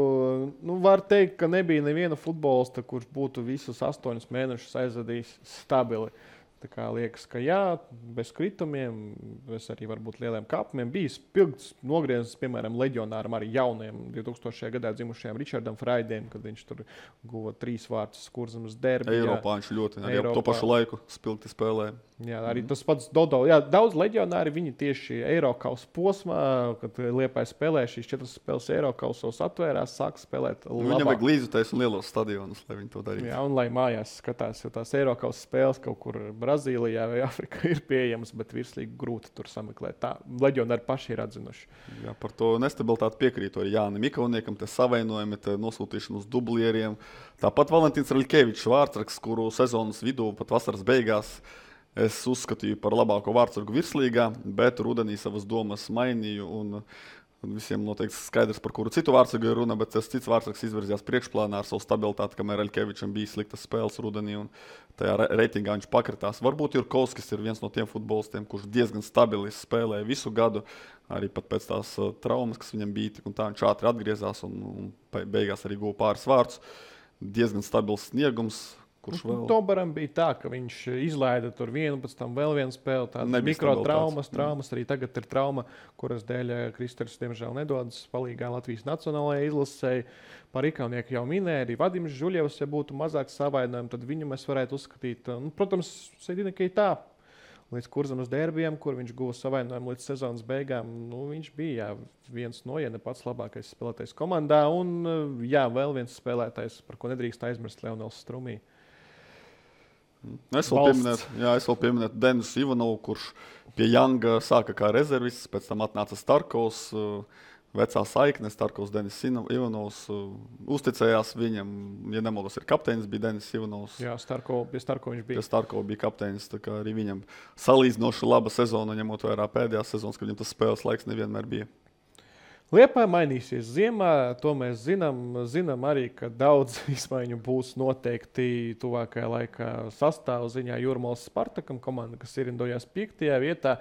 var teikt, ka nebija neviena futbolista, kurš būtu visus 8 mēnešus aizvadījis stabili. Tā kā liekas, ka jā, bez kritumiem, bez arī varbūt lieliem kāpumiem, bija spilgts nogrieznis, piemēram, leģionāram arī jauniem 2000. gadā dzimušajam Ričardam Fraidiem, kad viņš tur guva 3 vārtus Kurzemes derbijā. Eiropā viņš ļoti arī to pašu laiku spilgti spēlēja. Jā, arī tas pats Dodo. Jā, daudz leģionāri viņi tieši Eirokausa posmā, kad Liepāja spēlēja šīs 4 spēles Eirokausos atvērās, sāka spēlēt labāk. Viņam vajag līdzjutējs un lielos stadionus, lai viņi to darītu. Jā, un lai mājās skatās, jo tās Eirokausa spēles kaut kur Brazīlijā vai Afrikā ir pieejamas, bet virslīgi grūti tur sameklēt. Tā leģionāri paši ir atzinuši. Jā, par to nestabilitāti piekrītu arī Jānim Ikauniekam, te savainojumi, te nosūtīšana uz dublieriem. Tāpat Valentīns Raļkevičs vārdsargs, kuru sezonas vidū pat vasaras beigās es uzskatīju par labāko vārdsargu virslīgā, bet rudenī savas domas mainīju un visiem noteikti skaidrs, par kuru citu vārdsargu ir runa, bet tas cits vārdsargs izvirzījās priekšplānā ar savu stabilitāti, kamēr Raļkevičam bija sliktas spēles rudenī un tajā reitingā viņš pakritās. Varbūt Jurkovskis ir viens no tiem futbolistiem, kurš diezgan stabili spēlēja visu gadu, arī pat pēc tās traumas, kas viņam bija, un tā viņš ātri atgriezās un beigās arī guva pāris vārdus. Diezgan stabils sniegums. Tombaram bija tā, ka viņš izlaida tur vienu, pēc tam vēl vienu spēli. Tādas mikrotraumas, arī tagad ir trauma, kuras dēļ Kristers diemžēl nedodas palīgā Latvijas nacionālajai izlasēji. Par Ikaunieku jau minēja, arī Vadims Žuļevs, ja būtu mazāk savainojumi, tad viņu mēs varētu uzskatīt. Protams, Sedina Keitā līdz Kurzemes derbijam, kur viņš guva savainojumu līdz sezonas beigām. Viņš bija viens no, ja ne pats labākais spēlētājs komandā. Un vēl viens spēlētājs, par ko nedrīkst aizmirst, Leonels Strumī. Es vēl pieminētu Denisu Ivanovu, kurš pie Janga sāka kā rezervists, pēc tam atnāca Starkovs, vecā saikne, Starkovs, Denis Ivanovs, uzticējās viņam, ja nemaldos, ir kapteinis, bija Denis Ivanovs. Jā, pie Starkova viņš bija. Pie Starkova bija kapteinis, tā kā arī viņam salīdzinoši laba sezona, ņemot vērā pēdējās sezonas, kad viņam tas spēles laiks nevienmēr bija. Liepāja mainīsies ziemā, to mēs zinām arī, ka daudz izmaiņu būs noteikti tuvākajā laikā sastāvu ziņā. Jūrmālas Spartakam komanda, kas ierindojās 5. vietā.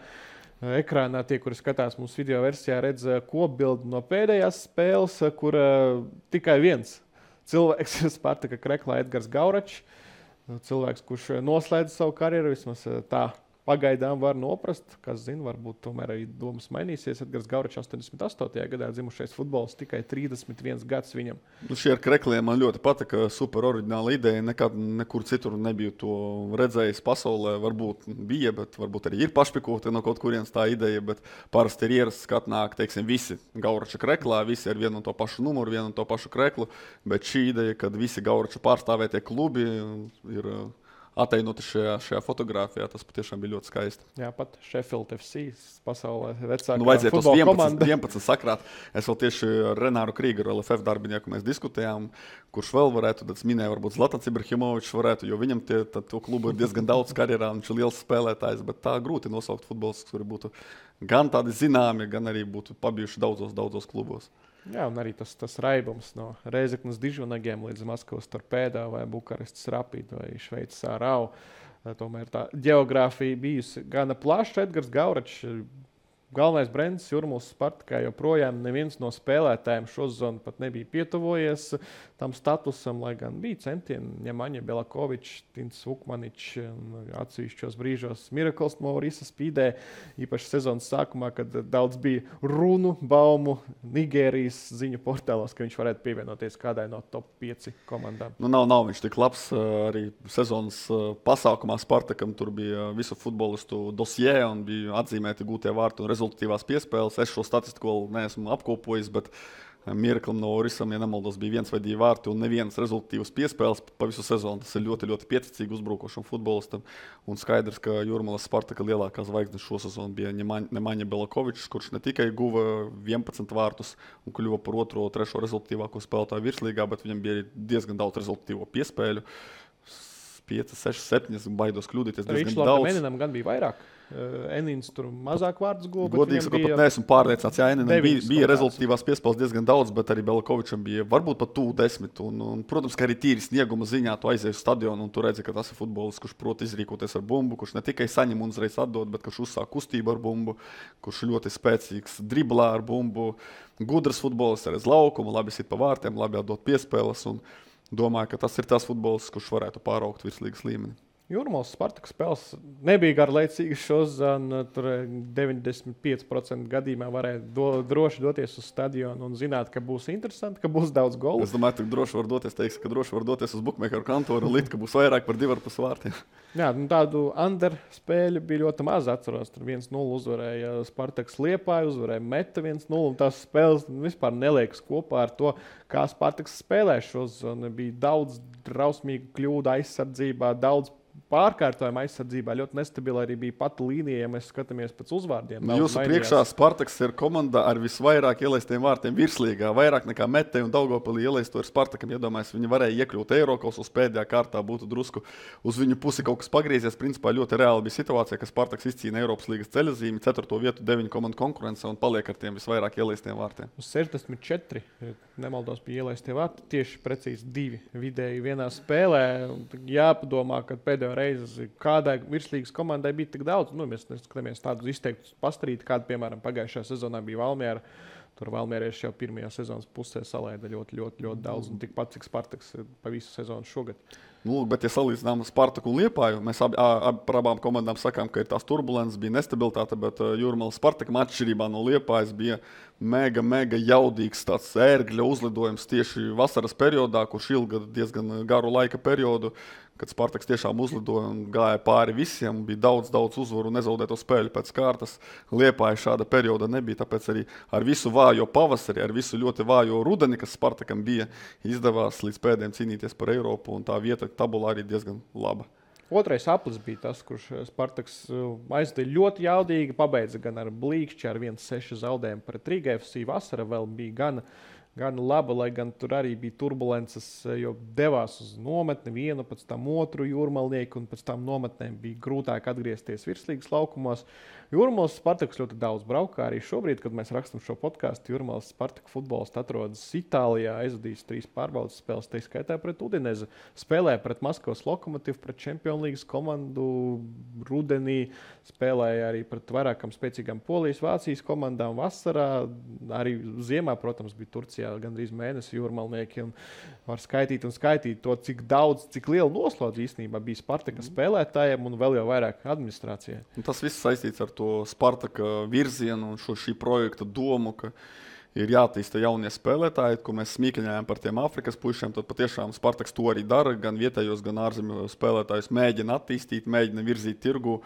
Ekrānā tie, kuri skatās mums video versijā, redz kopbildi no pēdējās spēles, kur tikai viens cilvēks Spartaka Kreklā Edgars Gauračs. Cilvēks, kurš noslēdz savu karjeru, vismaz tā pagaidām var noprast. Kas zina, varbūt tomēr arī domas mainīsies. Edgars Gauračs 88. gadā dzimušais futbols, tikai 31 gads viņam. Šie ar Krekliem man ļoti patika, super oriģināla ideja. Nekad nekur citur nebiju to redzējis pasaulē. Varbūt bija, bet varbūt arī ir pašpikoti no kaut kurienes tā ideja. Bet parasti ir ierasts, ka atnāk, teiksim, visi Gaurača Kreklā, visi ar vienu un to pašu numuru, vienu un to pašu kreklu. Bet šī ideja, kad visi Gaurača pārstāvētie klubi ir attēloti šajā fotografijā, tas patiešām bija ļoti skaisti. Jā, pat Sheffield FC pasaulē vecākā vajadzēja futbola tos komanda. 11 sakrāt. Es vēl tieši ar Renāru Krīgeru, LFF darbinieku, mēs diskutējām, kurš vēl varētu, tad es minēju, varbūt Zlatans Ibrahimovičs varētu, jo viņam to klubu ir diezgan daudz karjerā, viņš ir liels spēlētājs, bet tā grūti nosaukt futbols, kuri būtu gan tādi zināmi, gan arī būtu pabijuši daudzos klubos. Jā, un arī tas raibums no Reizeknas Dižvanagiem līdz Maskavas Torpēdā vai Bukarestas Rapid vai Šveices Ārau. Tomēr tā geogrāfija bijusi gana plaša. Edgars Gauračs, galvenais brands Jūrmālas Spartakā, joprojām neviens no spēlētājiem šo sezonu pat nebija pietuvojies tam statusam, lai gan bija centieni. Ņemaņa Belakovičs, Tins Vukmaničs, atsevišķos brīžos Mirakls Maurisa spīdē, īpaši sezonas sākumā, kad daudz bija runu, baumu Nigērijas ziņu portālos, ka viņš varētu pievienoties kādai no top 5 komandām. Nu, nav viņš tik labs. Arī sezonas pasākumā Spartakam tur bija visu futbolistu dosjē un bija atzīmēti gūtie vārti un rezultatīvās piespēles. Es šo statistiku vēl neesmu apkopojis, bet Miraklam no Orisam, ja nemaldos, bija 1 vai 2 vārti un nevienas rezultatīvas piespēles pa visu sezonu. Tas ir ļoti, ļoti pieticīgi uzbrukošam futbolistam. Un skaidrs, ka Jūrmālas Spartaka lielākā zvaigzne šo sezonu bija Ņemaņa Belakovičs, kurš ne tikai guva 11 vārtus un kļuva par 2. un 3. rezultatīvāko spēlētāju virslīgā, bet viņam bija arī diezgan daudz rezultatīvo piespēļu. 5, 6, 7, baidos kļūdīties diezgan daudz. Eninam gan bija vairāk. Enins tur mazāk vārdus guva. Godīgi sakot, pat neesmu pārliecināts. Jā, Eninam bija rezultatīvās piespēles diezgan daudz, bet arī Belakovičam bija varbūt pat tuvu 10. Un, protams, ka arī tīri snieguma ziņā tu aizies uz stadionu un tu redzi, ka tas ir futbolists, kurš prot izrīkoties ar bumbu, kurš ne tikai saņem un uzreiz atdod, bet kurš uzsāk kustību ar bumbu, kurš ļoti spēcīgs driblā ar bumbu, gudrs futbolists ar laukumu, labi sit pa vārtiem, labi atdot piespēles. Un domāju, ka tas ir tas futbolists, kurš varētu pāraugt virslīgas līmeni. Jūrmālas Spartaka spēles nebija garlaicīgas šodien. Tur 95% gadījumā varēja droši doties uz stadionu un zināt, ka būs interesanti, ka būs daudz golu. Es domāju, ka droši var doties uz bukmēkeru kantoru un likt, ka būs vairāk par 2,5 vārtiem. Jā, tādu under spēļu bija ļoti maz. Atceros, tur 1-0 uzvarēja Spartaks Liepāju, uzvarēja Meta 1-0. Un tās spēles vispār neliekas kopā ar to, kā Spartaks spēlē šodien. Bija daudz drausmīgu kļūdu aizsardzībā, daudz pārkārtojuma aizsardzībā, ļoti nestabila arī bija pati līnija, ja mēs skatāmies pēc uzvārdiem. Jūsu priekšā Spartaks ir komanda ar visvairāk ielaistiem vārtiem virslīgā, vairāk nekā Metei un Daugavpilī ielaisto ar Spartakam. Iedomājies, viņi varēja iekļūt Eirokausos pēdējā kārtā, būtu drusku uz viņu pusi kaut kas pagriezies. Principā ļoti reāli bija situācija, ka Spartaks izcīna Eiropas līgas ceļazīmi, 4. vietu 9 komandu konkurence un paliek ar tiem visvairāk ielaistiem vārtiem. Uz 64, nemaldos, bija ielaistie vārti, tieši precīzi 2 vidēji vienā spēlē. Jāpadomā, ka pēdējo reizi kādai virslīgas komandai bija tik daudz. Mēs neskatāmies tādus izteiktus pastarīti, kāda, piemēram, pagājušajā sezonā bija Valmiera. Tur Valmierieši jau pirmajā sezonas pusē salaida ļoti daudz, un tikpat cik Spartaks pa visu sezonu šogad. Bet, ja salīdzinām Spartaku un Liepāju, mēs par abām komandām sakām, ka ir tās turbulences, bija nestabilitāte, bet Jūrmālas Spartakam atšķirībā no Liepājas bija mega jaudīgs tāds ērgļa uzlidojums tieši vasaras periodā, kurš ilga diezgan garu laika periodu, kad Spartaks tiešām uzlidoja un gāja pāri visiem, bija daudz uzvaru un nezaudēto spēļu pēc kārtas. Liepāja šāda perioda nebija, tāpēc arī ar visu vājo pavasari, ar visu ļoti vājo rudeni, kas Spartakam bija, izdevās līdz pēdējiem cīnīties par Eiropu, un tā vieta tabulā arī diezgan laba. Otrais aplis bija tas, kurš Spartaks aizdeva ļoti jaudīgi, pabeidza gan ar blīkšķi, ar 1-6 zaudējumu pret Rīga FC. Vasara vēl bija gan laba, lai gan tur arī bija turbulences, jo devās uz nometni vienu, pēc tam otru jūrmalnieku, un pēc tam nometnēm bija grūtāk atgriezties virslīgas laukumos. Jūrmālas Spartaks ļoti daudz braukā. Arī šobrīd, kad mēs rakstam šo podkāstu, Jūrmālas Spartaka futbolists atrodas Itālijā, aizvadījis 3 pārbaudas spēles, tā skaitā pret Udinezi, spēlēja pret Maskavas Lokomotīvu, pret Champions League komandu rudenī, spēlēja arī pret vairākām spēcīgām Polijas, Vācijas komandām vasarā, arī ziemā, protams, bija Turcijā Vācijā gandrīz mēnesi jūrmalnieki. Var skaitīt to, cik liela noslodze īstenībā bija Spartaka spēlētājiem un vēl jau vairāk administrācijai. Un tas viss saistīts ar to Spartaka virzienu un šī projekta domu, ka ir jāattīsta jaunie spēlētāji, ko mēs smīkļājām par tiem Āfrikas puišiem. Tad patiešām Spartaks to arī dara, gan vietējos, gan ārzemju spēlētājus mēģina attīstīt, mēģina virzīt tirgu.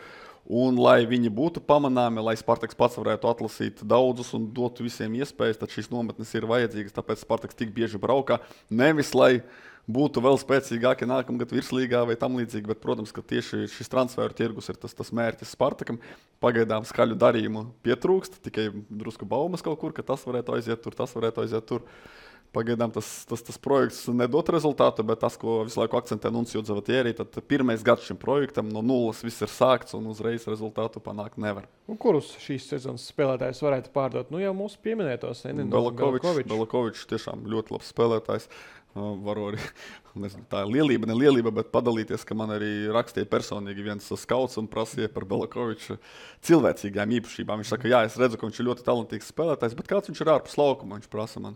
Un, lai viņi būtu pamanāmi, lai Spartaks pats varētu atlasīt daudzus un dotu visiem iespējas, tad šīs nometnes ir vajadzīgas. Tāpēc Spartaks tik bieži braukā. Nevis, lai būtu vēl spēcīgāki nākamgad virslīgā vai tam līdzīgi, bet, protams, ka tieši šis transferu tirgus ir tas mērķis Spartakam. Pagaidām skaļu darījumu pietrūkst, tikai drusku baumas kaut kur, ka tas varētu aiziet tur, tas varētu aiziet tur. Pagaidām tas projekts nedod rezultātu, bet tas, ko visu laiku akcentē Nuncio Zavatieri, tad pirmais gads šim projektam no nulles viss ir sākts un uzreiz rezultātu panākt nevar. Un kurus šīs sezonas spēlētājus varētu pārdot? Nu jau mūsu pieminētos Belakovičs tiešām ļoti labs spēlētājs. Varu arī, nezinu, tā ir lielība, bet padalīties, ka man arī rakstīja personīgi viens skauts un prasīja par Belakoviču cilvēcīgām īpašībām. Viņš saka, jā, es redzu, ka viņš ir ļoti talantīgs spēlētājs, bet kāds viņš ir ārpus laukuma? Viņš prasa man.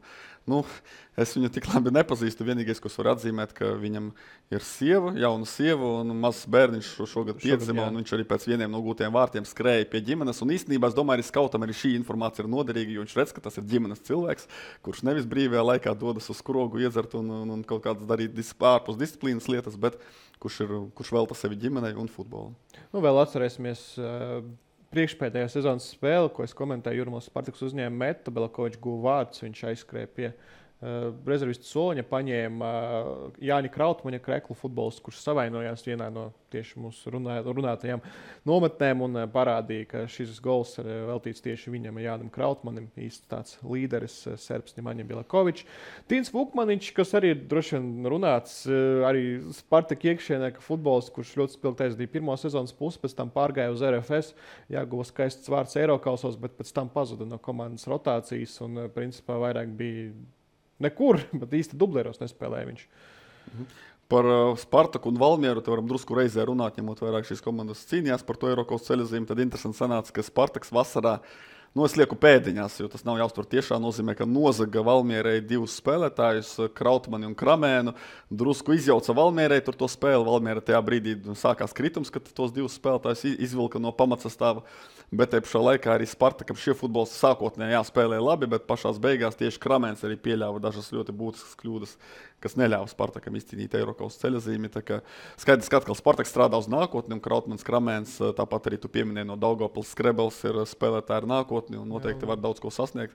Es viņu tik labi nepazīstu. Vienīgais, ko es varu atzīmēt, ka viņam ir jauna sieva un mazs bērniņš šogad piedzima, un viņš arī pēc vieniem no gūtiem vārtiem skrēja pie ģimenes. Un īstenībā es domāju, arī skautam arī šī informācija ir noderīga, jo viņš redz, ka tas ir ģimenes cilvēks, kurš nevis brīvajā laikā dodas uz skrogu iedzert un kaut kādas darīt ārpus disciplīnas lietas, bet kurš velta sevi ģimenei un futbolu. Vēl atcerēsimies priekšpēdējā sezonas spēle, ko es komentēju, Jūrmālas Spartaks uzņēma metu, Belakovičs guva vārdus, viņš aizskrēja pie rezervistu soliņa, paņēma Jāņa Krautmaņa kreklu futbolistu, kurš savainojās vienā no tieši mūsu runātajām nometnēm un parādīja, ka šis gols ir veltīts tieši viņam, Jānim Krautmanim, īsti tāds līderis, serbs Ņemaņa Belakovičs. Tīns Vukmaniņš, kas arī droši vien runāts, arī Spartak iekšienē, ka futbolists, kurš ļoti spilgti aizdīja pirmo sezonas pusi, pēc tam pārgāja uz RFS, jāguva skaists vārds Eirokausos, bet pēc tam pazuda no komandas rotācijas un principā vairāk bija nekur, bet īsti dublēros nespēlēja viņš. Par Spartaku un Valmieru te varam drusku reizē runāt, ņemot vairāk šīs komandas cīnījās par to Eirokaus ceļojumu. Tad interesanti sanāca, ka Spartaks vasarā, es lieku pēdiņās, jo tas nav jāuztver tiešā nozīmē, ka nozaga Valmierai divus spēlētājus, Krautmani un Kramēnu, drusku izjauca Valmierai tur to spēli. Valmiera tajā brīdī sākās kritums, kad tos divus spēlētājus izvilka no pamatsastāva. Bet te pašā laikā arī Spartakam šie futbolisti sākotnēji spēlēja labi, bet pašās beigās tieši Kramēns arī pieļāva dažas ļoti būtiskas kļūdas, kas neļāva Spartakam izcīnīt Eirokaus ceļazīmi. Skaidrs, ka atkal Spartaks strādā uz nākotni, un Krautmans, Kramēns, tāpat arī tu pieminēji no Daugavpils, Skrebels ir spēlētāji ar nākotni un noteikti var daudz ko sasniegt.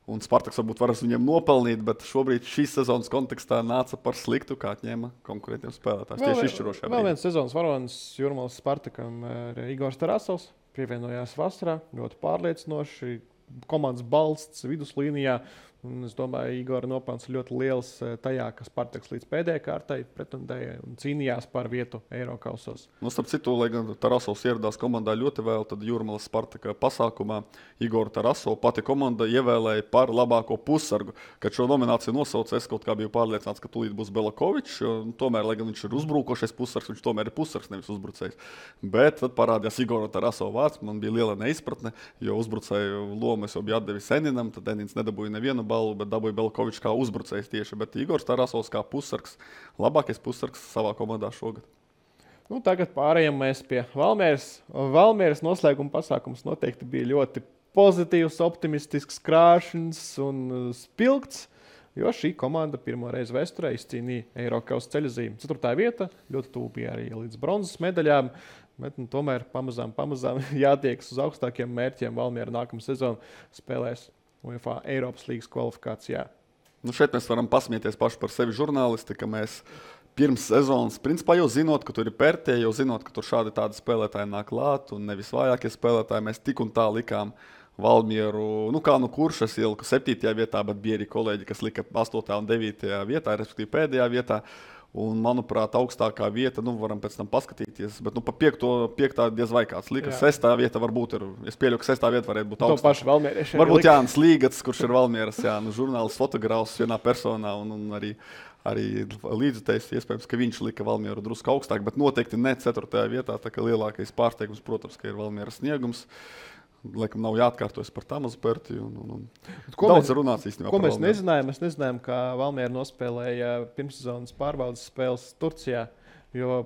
Un Spartaks varbūt varas viņiem nopelnīt, bet šobrīd šīs sezonas kontekstā nāca par sliktu, kā atņēma konkurentiem spēlētājs. Tieši izšķirošajā brīdī. Vēl viens sezonas varonis Jūrmālas Spartakam ir Igors Tarasovs. Pievienojās vasarā, ļoti pārliecinoši, komandas balsts viduslīnijā. Un es domāju, Igora nopelns ļoti liels tajā, ka Spartaks līdz pēdējai kārtai pretendēja un cīnījās par vietu Eirokausos. Starp citu, lai gan Tarasovs ieradās komandā ļoti vēl, tad Jūrmālas Spartaka pasākumā Igoru Tarasovu pati komanda ievēlēja par labāko pussargu. Kad šo nomināciju nosauca, es kaut kā biju pārliecināts, ka tūlīt būs Belakovičs, jo tomēr, lai gan viņš ir uzbrukošais pussargs, viņš tomēr ir pussargs, nevis uzbrucējs. Bet tad parādījās Igora Tarasova vārds, man bija liela neizpratne, jo uzbrucēju lomu es jau biju atdevis Eninam, tad Enins nedabūja nevienu balvu, bet dabūja Belakovičs kā uzbrucējs tieši, bet Igors Tarasovs kā pussargs, labākais pussargs savā komandā šogad. Tagad pārējām mēs pie Valmieras. Valmieras noslēguma pasākums noteikti bija ļoti pozitīvs, optimistisks, krāšņs un spilgts, jo šī komanda pirmo reizi vēsturē izcīnīja Eirokaus ceļazīmi. 4. vieta, ļoti tuvu bija arī līdz bronzas medaļām, bet tomēr pamazām jātiekas uz augstākiem mērķiem. Valmiera nākamā sezona spēlēs UEFA Eiropas līgas kvalifikācijā. Šeit mēs varam pasmieties paši par sevi žurnālisti, ka mēs pirms sezonas, principā jau zinot, ka tur ir Pertē, jau zinot, ka tur šādi tādi spēlētāji nāk klāt un nevis vājākie spēlētāji, mēs tik un tā likām Valmieru, kurš es ieliku 7. vietā, bet bija arī kolēģi, kas lika 8. un 9. vietā, respektīvi pēdējā vietā. Un, manuprāt, augstākā vieta, varam pēc tam paskatīties, bet pa 5. diez vai kāds lika. 6. vieta varbūt ir, es pieļauju, ka 6. vieta varētu būt augstākā. Varbūt Jānis Līgats, kurš ir Valmieras, žurnālists, fotogrāfs vienā personā un arī līdzutējs, iespējams, ka viņš lika Valmieru drusku augstāk, bet noteikti ne 4. vietā, tā kā lielākais pārsteigums, protams, ka ir Valmieras sniegums. Laikam nav jāatkārtojas par Tamazu Pertiju. Ko Daudz runāts īstenībā. Ko mēs nezinājām? Mēs nezinājām, kā Valmiera nospēlēja pirmssezonas pārbaudas spēles Turcijā. Jo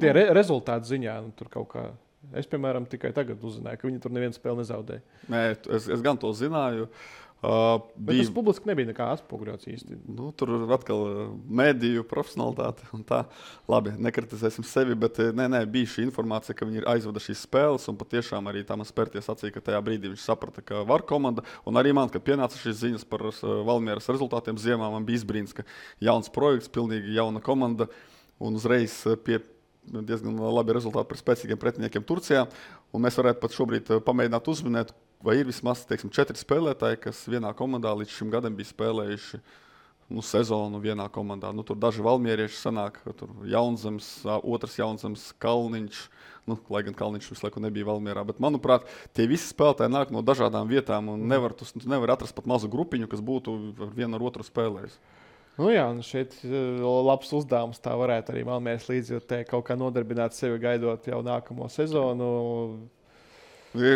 tie rezultātu ziņā tur kaut kā. Es, piemēram, tikai tagad uzzināju, ka viņi tur nevienu spēli nezaudēja. Nē, es gan to zināju. Bet tas publiski nebija nekā atspoguļots īsti. Tur atkal mediju profesionalitāte un tā. Labi, nekritizēsim sevi, bet bija šī informācija, ka viņi ir aizvada šīs spēles, un patiešām arī Tamas Perties sacīja, ka tajā brīdī viņš saprata, ka var komanda. Un arī man, kad pienāca šīs ziņas par Valmieras rezultātiem ziemā, man bija izbrīns, ka jauns projekts, pilnīgi jauna komanda, un uzreiz pie diezgan labi rezultāti par spēcīgiem pretiniekiem Turcijā. Un mēs varētu pat šobrīd pamēģināt uzminēt, vai ir vismaz 4 spēlētāji, kas vienā komandā līdz šim gadam bija spēlējuši sezonu vienā komandā. Tur daži valmierieši sanāk, tur Jaunzems, otrs Jaunzems, Kalniņš, lai gan Kalniņš visu laiku nebija Valmierā. Bet, manuprāt, tie visi spēlētāji nāk no dažādām vietām un nevar atrast pat mazu grupiņu, kas būtu vienu ar otru spēlējis. Jā, un šeit labs uzdevums tā varētu arī Valmieras līdzjūtē kaut kā nodarbināt sevi gaidot jau nākamo sezonu.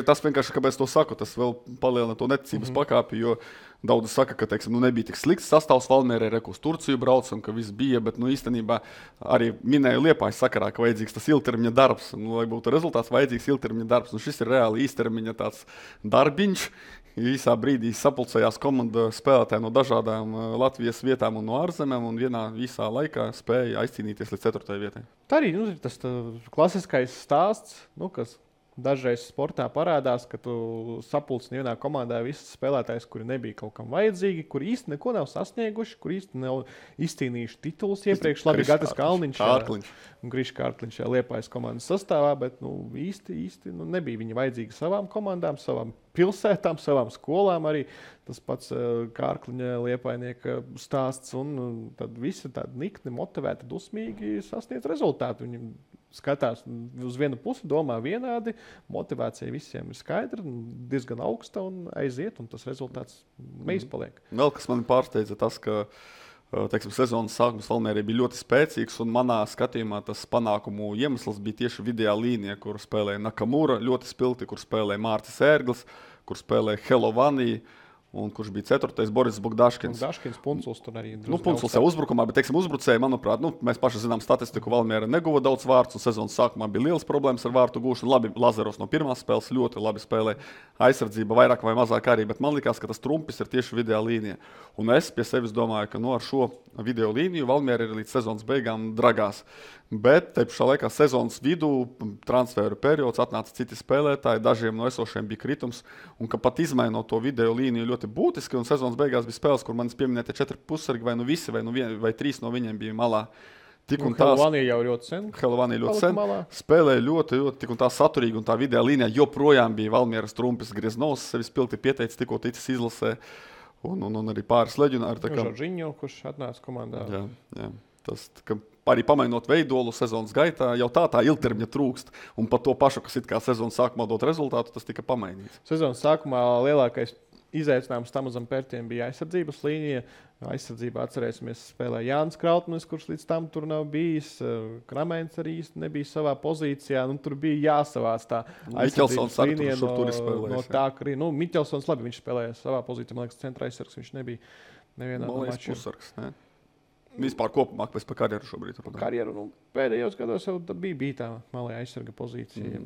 Tas vienkārši, kāpēc to saku, tas vēl palielina to neticības pakāpi, jo daudzi saka, ka nebija tik slikts sastāvs Valmierai, uz Turciju braucam, ka viss bija, bet īstenībā arī minēju Liepājas sakarā, ka vajadzīgs tas ilgtermiņa darbs, lai būtu rezultāts, vajadzīgs ilgtermiņa darbs. Šis ir reāli īstermiņa tāds darbiņš. Īsā brīdī sapulcējās komanda spēlētāji no dažādām Latvijas vietām un no ārzemēm, un vienā īsā laikā spēja aizcīnīties līdz 4. vietai. Tā arī ir tas klasiskais stāsts, kas dažreiz sportā parādās, ka tu sapulcini vienā komandā visus spēlētājus, kuri nebija kaut kam vajadzīgi, kuri īsti neko nav sasnieguši, kuri īsti nav izcīnījuši titulus iepriekš. Labi, Gatis Kalniņš un Grišs Kārkliņš Liepājas komandas sastāvā, bet īsti nebija viņi vajadzīgi savām komandām, savām pilsētām, savām skolām arī. Tas pats Kārkliņa Liepainieka stāsts, un tad visi tādi nikni, motivēti, dusmīgi sasniedz rezultātu. Viņi skatās uz vienu pusi, domā vienādi, motivācija visiem ir skaidra, diezgan augsta un aiziet, un tas rezultāts neizpaliek. Vēl kas mani pārsteidza tas, ka sezonas sākums Valmierai bija ļoti spēcīgs, un manā skatījumā tas panākumu iemesls bija tieši vidējā līnija, kur spēlēja Nakamura ļoti spilti, kur spēlēja Mārcis Ērglis, kur spēlēja Helovanī, un kurš bija 4. Boris Bogdaškins. Punculs tur arī. Punculs jau uzbrukumā, bet, uzbrucēji, manuprāt, mēs paši zinām statistiku, Valmiera neguva daudz vārtus, un sezonas sākumā bija liels problēmas ar vārtu gūšanu. Labi, Lazaros no pirmās spēles ļoti labi spēlēja, aizsardzība vairāk vai mazāk arī, bet man likās, ka tas trumpis ir tieši vidējā līnija. Un es pie sevis domāju, ka ar šo video līniju Valmiera ir līdz sezonas beigām dragās. Bet te pašā laikā sezonas vidū, transferu periods, atnāca citi spēlētāji, dažiem no esošiem bija kritums, un ka pat izmainot to video līniju ļoti būtiski, un sezonas beigās bija spēles, kur manis pieminētie 4 pusargi, vai visi, vai 3 no viņiem bija malā. Helovanī jau ļoti sen. Helovanī ļoti sen. Spēlēja ļoti, tik un tā saturīgi, un tā video līnijā joprojām bija Valmieras trumpis Grieznovs, sevi spilgti pieteicis, tikko ticis izlasē, un arī pāris leģionāri. Žoržiņo, kurš atnāca komandā. Jā. Tas, arī pamainot veidolu sezonas gaitā, jau tā ilgtermiņa trūkst. Un par to pašu, kas it kā sezonas sākumā dot rezultātu, tas tika pamainīts. Sezonas sākumā lielākais izaicinājums Tamazam Pertiem bija aizsardzības līnija. Aizsardzībā atcerēsimies, spēlēja Jānis Krautmanis, kurš līdz tam tur nav bijis. Kramēns arī nebija savā pozīcijā. Tur bija jāsavāc tā aizsardzības līnija no tā, ka arī Miķelsons labi, viņš spēlēja savā pozīcijā. Man liekas, centra aizsargs viņš nebija nevienā no mačiem. Vispār kopumā, pēc par karjeru šobrīd. Karjeru, pēdējos gados jau bija tā malē aizsarga pozīcija.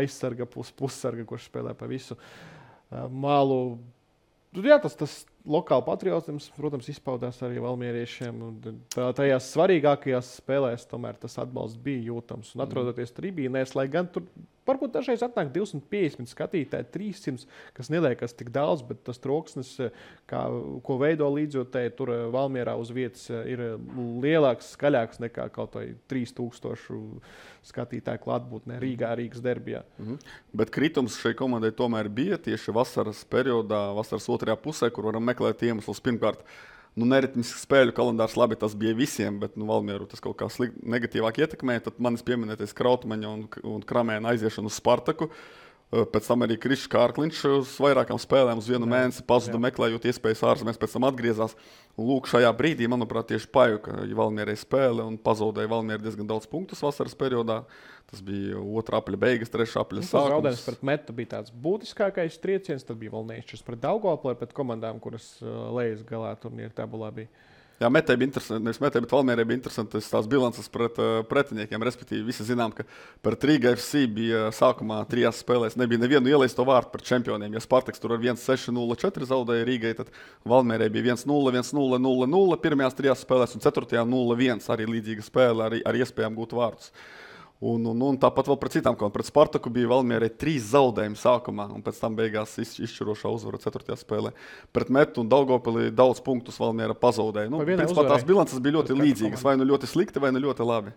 Aizsarga, pussarga, kurš spēlē pa visu malu. Jā, tas lokāli patriotisms, protams, izpaudās arī valmieriešiem. Tajās svarīgākajās spēlēs tomēr tas atbalsts bija jūtams. Un atrodoties tribīnēs, lai gan tur varbūt dažreiz atnāk 250 skatītāji, 300, kas neliekas tik daudz, bet tas troksnis, ko veido līdzjūtēji, tur Valmierā uz vietas ir lielāks, skaļāks nekā kaut vai 3000 skatītāju klātbūtnē Rīgas derbijā. Bet kritums šai komandai tomēr bija tieši vasaras periodā, vasaras otrajā pusē, kur varam meklēt iemeslus. Pirmkārt, neritmisks spēļu kalendārs, labi, tas bija visiem, bet Valmieru tas kaut kā negatīvāk ietekmēja. Tad manis pieminētais Krautmaņa un Kramēna aiziešana uz Spartaku. Pēc tam arī Krišs Kārkliņš uz vairākām spēlēm uz vienu mēnesi pazuda meklējot iespējas ārzemēs, pēc tam atgriezās. Un lūk, šajā brīdī, manuprāt, tieši pajuka Valmierai spēle un pazaudēja Valmiera diezgan daudz punktus vasaras periodā. Tas bija 2. apļa beigas, 3. apļa sākums. Zaudējums pret Metu bija tāds būtiskākais trieciens, tad bija vēl neizšķirs pret Daugavpili, pret komandām, kuras lejas galā turnīra tabulā bija. Jā, Metē bija interesanti, nevis Metē, bet Valmierai bija interesantas tās bilances pret pretiniekiem. Respektīvi, visi zinām, ka pret Rīga FC bija sākumā 3 spēlēs. Nebija nevienu ielaisto vārtu pret čempioniem. Ja Spartaks tur ar 1-6-0-4 zaudēja Rīgai, tad Valmierai bija 1-0, 1-0, 0-0 pirmajās 3 spēlēs un 4. 0-1 arī līdzīga spēle ar iespējām gūt vārtus. Un tāpat vēl pret citām komandām. Pret Spartaku bija Valmierai 3 zaudējumi sākumā, un pēc tam beigās izšķirošā uzvara 4. spēlē. Pret Metu un Daugavpili daudz punktus Valmiera pazaudēja. Principā tās bilances bija ļoti līdzīgas, vai nu ļoti slikti, vai nu ļoti labi.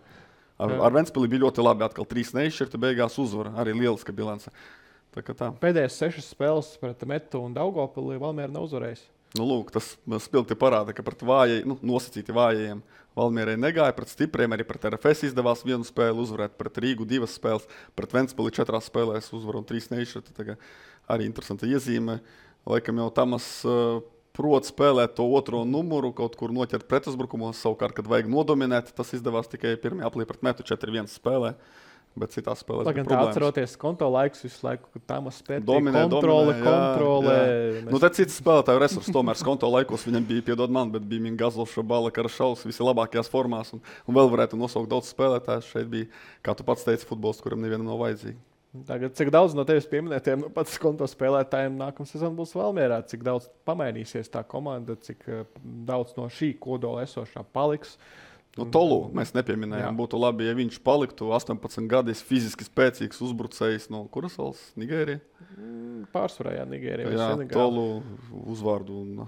Ar Ventspili bija ļoti labi, atkal 3 neizšķirti, beigās uzvara, arī lieliska bilance. Tā. Pēdējās 6 spēles pret Metu un Daugavpili Valmiera nav uzvarējis. Lūk, tas spilgti parāda, ka pret nosacīti vājajiem Valmierai negāja, pret stipriem arī pret RFS izdevās 1 spēli uzvarēt, pret Rīgu 2 spēles, pret Ventspili 4 spēlēs uzvaru un 3 neizšķirti. Arī interesanta iezīme. Laikam jau Tamas prot spēlēt to 2. numuru, kaut kur noķert pretuzbrukumos, savukārt, kad vajag nodominēt, tas izdevās tikai 1. aplī pret Metu 4-1 spēlē. Bet citās spēlēs bija problēmas. Atceroties konto laikus visu laiku, kad Tamas spēlē kontrole. Jā. Tad cits spēlētāju resursi tomēr konto laikos viņam bija, piedod man, bet bija Mingazovs, Šabala, Karašaus, visi labākajās formās un vēl varētu nosaukt daudz spēlētājus. Šeit bija, kā tu pats teici, futbols, kuram nevienam nav vajadzīgi. Tagad, cik daudz no tevis pieminētiem pats konto spēlētājiem nākamā sezona būs Valmierā, cik daudz pamainīsies tā komanda, cik daudz no šī kodola esošā paliks. Tolu mēs nepieminējām. Būtu labi, ja viņš paliktu 18 gadus fiziski spēcīgs uzbrucējs no kuras valsts? Nigērija? Pārsvarā, Nigērija. Jā, Tolu uzvārdu un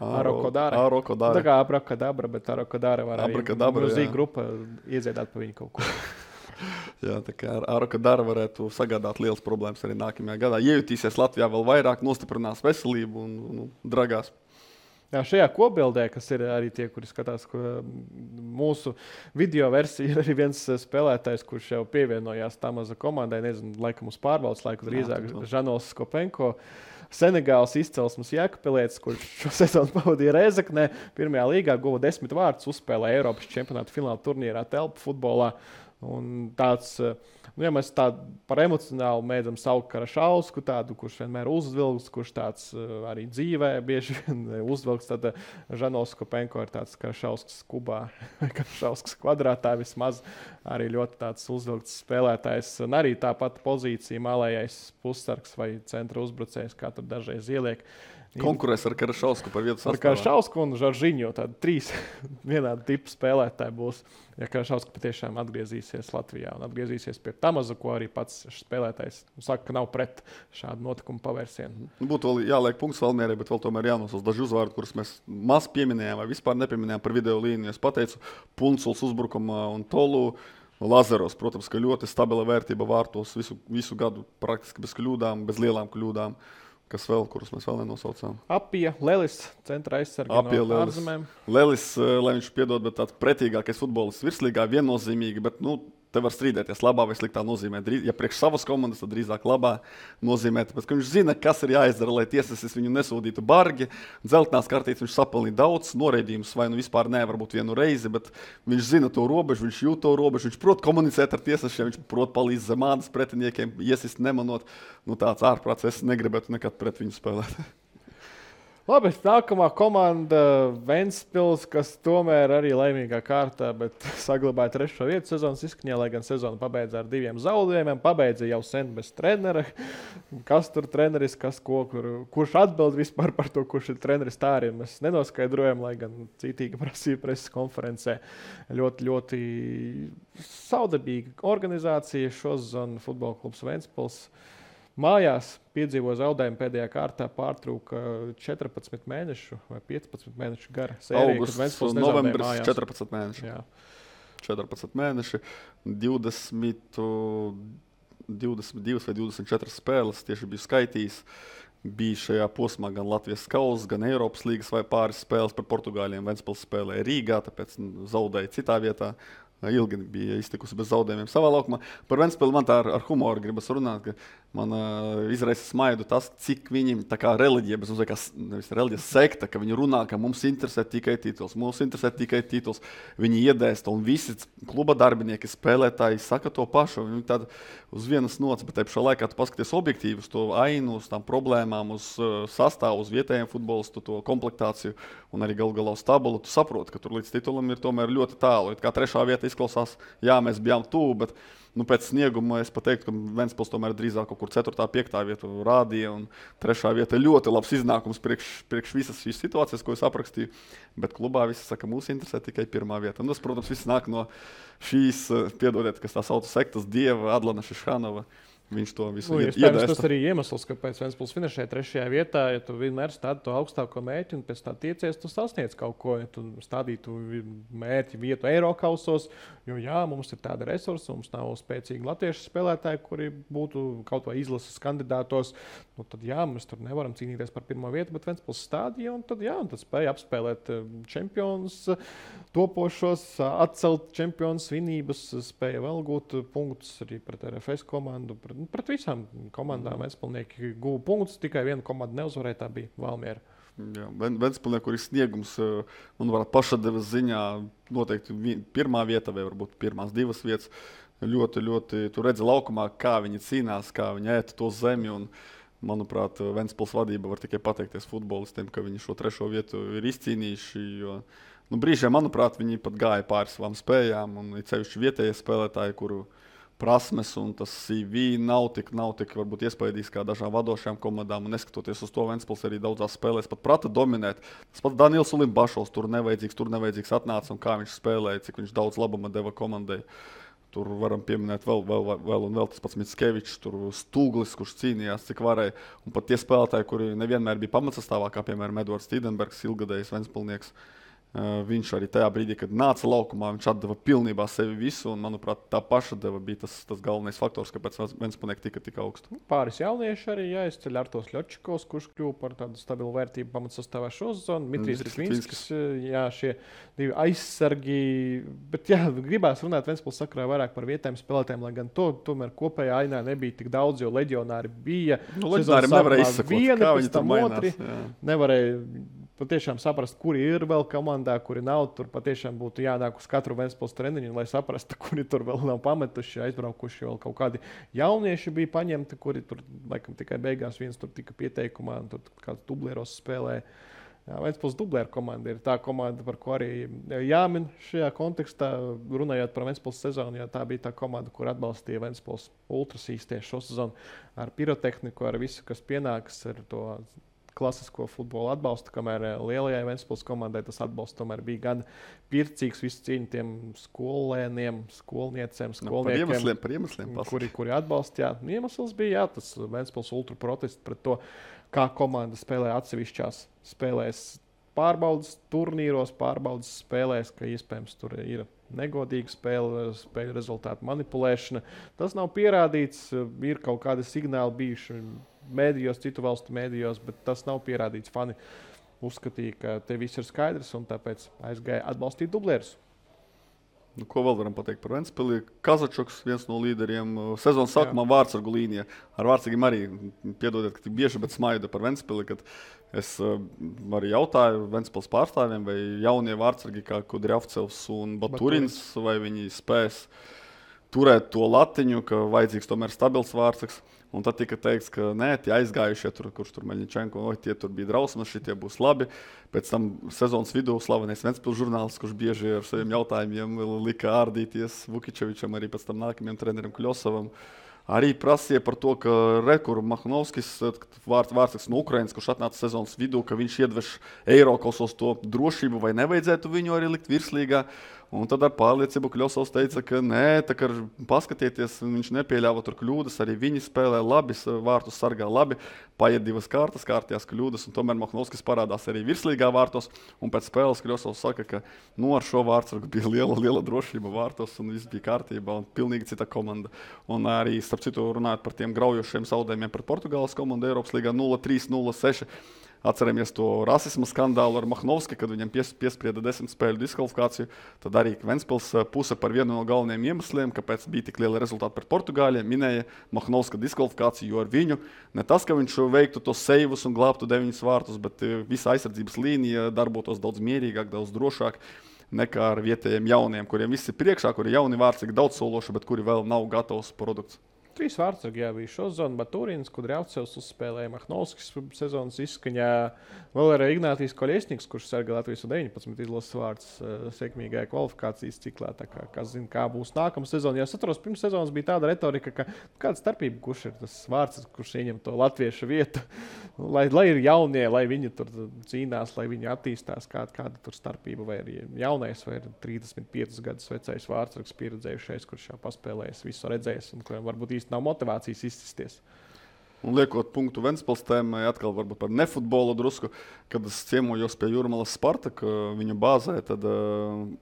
Arokodāra. Tā kā Abrokadabra, bet Arokodāra var arī Gruzija grupa iedziedāt pa viņu kaut ko. Jā, tā kā Arokodāra varētu sagādāt lielas problēmas arī nākamajā gadā. Iejutīsies Latvijā vēl vairāk, nostiprinās veselību un dragās. Jā, šajā kopbildē, kas ir arī tie, kuri skatās mūsu video versiju, ir arī viens spēlētājs, kurš jau pievienojās Tamaza komandai, nezinu, laikam uz pārbaudas laiku, drīzāk Žanols Skopenko, Senegāls izcelsmes Jēkabpilietis, kurš šo sezonu pavadīja Rēzeknē, pirmajā līgā guva 10 vārdus, uzspēlēja Eiropas čempionāta fināla turnīrā telpu futbolā. Un tāds, ja mēs tādu par emocionālu mēdzam saukt Karašausku, tādu, kurš vienmēr uzvilks, kurš tāds arī dzīvē bieži vien uzvilks, tad Žanols Skopenko ir tāds Karašausks kubā, Karašausks kvadrātā vismaz, arī ļoti tāds uzvilkts spēlētājs. Un arī tāpat pozīcija malējais pussargs vai centra uzbrucējs, kā tur dažreiz ieliek. Konkurēs ar Karašausku par vietu sastāvā. Ar Karašausku un Žoržiņu, tādi 3 vienādi tipi spēlētāji būs, ja Karašausku patiešām atgriezīsies Latvijā un atgriezīsies pie Tamaza, ko arī pats spēlētājs saka, ka nav pret šādu notikumu pavērsienu. Būtu vēl jāliek punkts Valmierai, bet vēl tomēr jānosauc daži uzvārdi, kurus mēs maz pieminējām vai vispār nepieminējām par video līniju. Es pateicu Punculs uzbrukumā un Tolu. Lazaros, protams, ka ļoti stabila vērtība vārtos visu gadu praktiski bez kļūdām, bez lielām kļūdām. Kas vēl, kurus mēs vēl nenosaucām? Apija, Lelis, centra aizsarga no ārzemēm. Lelis, lai viņš piedod, bet tāds pretīgākais futbolists virslīgā viennozīmīgi, bet te var strīdēties labā vai sliktā nozīmē. Ja priekš savas komandas, tad drīzāk labā nozīmē, tāpēc, ka viņš zina, kas ir jāizdara, lai tiesasis viņu nesūdītu bargi. Dzeltenās kartītes viņš sapelnīja daudz, noraidījums vai vispār varbūt vienu reizi, bet viņš zina to robežu, viņš jūt to robežu, viņš prot komunicēt ar tiesasiem, viņš prot palīdz zem ādas pretiniekiem, iesist nemanot. Tāds ārprāts, es negribētu nekad pret viņu spēlēt. Labi, nākamā komanda Ventspils, kas tomēr arī laimīgā kārtā, bet saglabāja 3. vietu sezonas izskaņā, lai gan sezonu pabeidza ar 2 zaudējumiem. Pabeidza jau sen bez trenera. Kas tur treneris, kurš atbild vispār par to, kurš ir treneris, tā arī mēs nenoskaidrojam, lai gan cītīgi prasīja preses konferencē. Ļoti, ļoti saudabīga organizācija šosezon futbola klubs Ventspils. Mājās piedzīvoja zaudējumu pēdējā kārtā, pārtrūka 14 mēnešu vai 15 mēnešu gara sērija. Augusts un novembris 14 mēneši. Jā. 14 mēneši, 22 vai 24 spēles tieši biju skaitījis. Bija šajā posmā gan Latvijas kausa, gan Eiropas līgas vai pāris spēles par Portugāļiem. Ventspils spēlēja Rīgā, tāpēc zaudēja citā vietā. ilgi bija iztikusi bez zaudējumiem savā laukumā. Par Ventspili man tā ar humoru gribas runāt, ka man izraisa smaidu tas, cik viņiem tā kā reliģija, bez uzveikās, nevis reliģijas sekta, ka viņi runā, ka mums interesē tikai tituls, viņi iedēsta, un visi kluba darbinieki, spēlētāji saka to pašu, viņi tāda uz vienas nots, bet te pašā laikā tu paskaties objektīvi uz to ainu, uz tām problēmām, uz sastāvu, uz vietējiem futbolistu, to komplektāciju, un arī galu galā uz tabulu, tu saproti, ka tur līdz titulam ir tomēr ļoti tālu. Kā 3. vieta izklausās, jā, mēs bijām tuvu, bet pēc snieguma es pateiktu, ka Ventspils tomēr drīzāk kaut kur 4. 5. vietu rādīja, un 3. vieta ir ļoti labs iznākums priekš visas šīs situācijas, ko es aprakstīju, bet klubā visi saka, mūs interesē tikai 1. vieta. Un tas, protams, viss nāk no šīs, piedodiet, kas tā sauc sektas dieva Adlana Šišanova. Viņš to visu iedēsta. Tas arī iemesls, kāpēc Ventspils finišē 3. vietā, ja tu vienmēr stādi to augstāko mērķi un pēc tā tiecies, tu sasniedz kaut ko, ja tu stādītu mērķi vietu Eirokausos, jo jā, mums ir tāda resursa, mums nav spēcīgi latviešu spēlētāji, kuri būtu kaut vai izlases kandidātos, nu tad jā, mēs tur nevaram cīnīties par 1. vietu, bet Ventspils stādīja un tad jā, un tad spēja apspēlēt čempionus, topošos, atcelt čempionus svinības, spēja vēl gūt punktus arī pret RFS komandu, pret visām komandām Ventspilnieki guva punktus, tikai viena komanda neuzvarēja, tā bija Valmiera. Jā, Ventspilnieku, kur ir sniegums, manuprāt, pašadevas ziņā noteikti 1. vieta vai varbūt pirmās 2 vietas. Ļoti, ļoti, tu redzi laukumā, kā viņi cīnās, kā viņi ēta to zemi, un, manuprāt, Ventspils vadība var tikai pateikties futbolistiem, ka viņi šo 3. vietu ir izcīnījuši, jo brīžiem, manuprāt, viņi pat gāja pāri savām spējām, un ir cevišķi vietējie spēlētāji, kuru prasmes un tas CV nav tik varbūt iespaidīgs kā dažām vadošajām komandām, un neskatoties uz to, Ventspils arī daudzās spēlēs pat prata dominēt. Tas pats Daniels Ulimbašovs tur nevajadzīgs atnāca, un kā viņš spēlēja, cik viņš daudz labuma deva komandai. Tur varam pieminēt vēl tas pats Mickevičs, tur Stūglis, kurš cīnījās, cik varēja. Un pat tie spēlētāji, kuri nevienmēr bija pamatsastāvā, kā piemēram Edvards Tīdenbergs, ilgadējs Ventspilnieks. Viņš arī tajā brīdī, kad nāca laukumā, viņš atdeva pilnībā sevi visu, un, manuprāt, tā paša deva bija tas galvenais faktors, kāpēc Ventspilnieki tika tik augstu. Pāris jaunieši arī jāizceļ Artos Ļočikovs, kurš kļuva par tādu stabilu vērtību pamatsastāvā šo sezonu. Dmitrijs Rikvinskis, jā, šie 2 aizsargi, bet jā, gribās runāt Ventspils sakarā vairāk par vietējiem spēlētājiem, lai gan to tomēr kopējā ainā nebija tik daudz, jo leģionāri bija. Leģionāri nevarēja izsakot, kā viņi tur mainās. Nevarēja patiešām saprast, kuri ir vēl komandā, kuri nav. Tur patiešām būtu jānāk uz katru Ventspils treniņu, lai saprastu, kuri tur vēl nav pametuši, aizbraukuši. Vēl kaut kādi jaunieši bija paņemti, kuri tur laikam tikai beigās viens tur tika pieteikumā un tur kāds dublieros spēlēja. Ventspils dublieru komanda ir tā komanda, par ko arī jāmin šajā kontekstā, runājot par Ventspils sezonu, jo tā bija tā komanda, kur atbalstīja Ventspils ultrasīs tieši šo sezonu ar pirotehniku, ar visu, kas pienāks, ar to klasisko futbolu atbalstu, kamēr lielajai Ventspils komandai tas atbalsts tomēr bija gan pircīgs, visu cīņu tiem skolēniem, skolniecēm, skolniekiem, par iemesliem kuri atbalstīja. Iemesls bija tas Ventspils ultra protests pret to, kā komanda spēlē atsevišķās spēlēs, pārbaudas turnīros, pārbaudas spēlēs, ka iespējams tur ir negodīga spēļu rezultātu manipulēšana. Tas nav pierādīts, ir kaut kādi signāli bijuši mēdījos, citu valstu mēdījos, bet tas nav pierādīts. Fani uzskatīja, ka te viss ir skaidrs, un tāpēc aizgāja atbalstīt dublierus. Ko vēl varam pateikt par Ventspili? Kazačoks, viens no līderiem, sezonas sākumā vārtsargu līnijā. Ar vārtsargiem arī, piedodiet, ka tik bieži, bet smaidu par Ventspili, kad es arī jautāju Ventspils pārstāvjiem, vai jaunie vārtsargi kā Kudriavcevs un Baturins, vai viņi spēs turēt to latiņu, ka vajadzīgs tomēr stabils vārtsargs. Un tad tika teikts, ka nē, tie aizgājušie, kurš tur Meļņičenko, tie tur bija drausmas, šitie būs labi. Pēc tam sezonas vidū slavenais Ventspils žurnālists, kurš bieži ar saviem jautājumiem lika ārdīties Vukičevičam, arī pēc tam nākamajam trenerim Kļosavam. Arī prasīja par to, ka Rekur Mahnovskis, vārtsargs no Ukrainas, kurš atnāca sezonas vidū, ka viņš iedveš Eirokausos to drošību, vai nevajadzētu viņu arī likt virslīgā. Un tad ar pārliecību Kļosovs teica, ka nē, tā kā paskatieties, viņš nepieļāva tur kļūdas, arī viņi spēlē labi, vārtus sargā labi, paiet 2 kārtas, kārtījās kļūdas, un tomēr Mahnovskis parādās arī virslīgā vārtos, un pēc spēles Kļosovs saka, ka ar šo vārtsargu bija liela drošība vārtos, un viss bija kārtībā, un pilnīgi cita komanda. Un arī, starp citu, runājot par tiem graujošiem zaudējumiem pret Portugāles komandu Eiropas līgā 0-3, 0-6, Atceramies to rasisma skandālu ar Mahnovski, kad viņam piesprieda 10 spēļu diskvalifikāciju. Tad arī Ventspils puse par vienu no galvenajiem iemesliem, kāpēc bija tik liela rezultāta pret Portugāļiem, minēja Mahnovska diskvalifikāciju, jo ar viņu ne tas, ka viņš veiktu tos seivus un glābtu 9 vārtus, bet visa aizsardzības līnija darbotos daudz mierīgāk, daudz drošāk nekā ar vietējiem jauniem, kuriem viss ir priekšā, kuri jauni vārtsargi daudz sološi, bet kuri vēl nav gatavs produkts. 3 vārtsargi bija Šozons, Baturins, Kudriavcevs uzspēlēja Mahnovskis sezonas izskaņā. Vēl ir Ignātijs Koļiesniks, kurš sargā Latvijas 19 izlases vārds sekmīgajā kvalifikācijas ciklā. Tā kā zina, kā būs nākamā sezona. Ja es atceros, pirms sezonas bija tāda retorika, ka kāda starpība, kurš ir tas vārds, kurš ieņem to latviešu vietu. Lai ir jaunie, lai viņi tur cīnās, lai viņi attīstās, kāda tur starpība. Vai ir jaunais, vai ir 35 gadus vecais vārdsargs pieredzējušais, kurš jau paspēlējis, visu redzējis un kuriem varbūt nav motivācijas izsisties. Un liekot punktu Ventspils tēmai, atkal varbūt par nefutbolu drusku, kad es ciemojos pie Jūrmalas Spartaka viņu bāzē, tad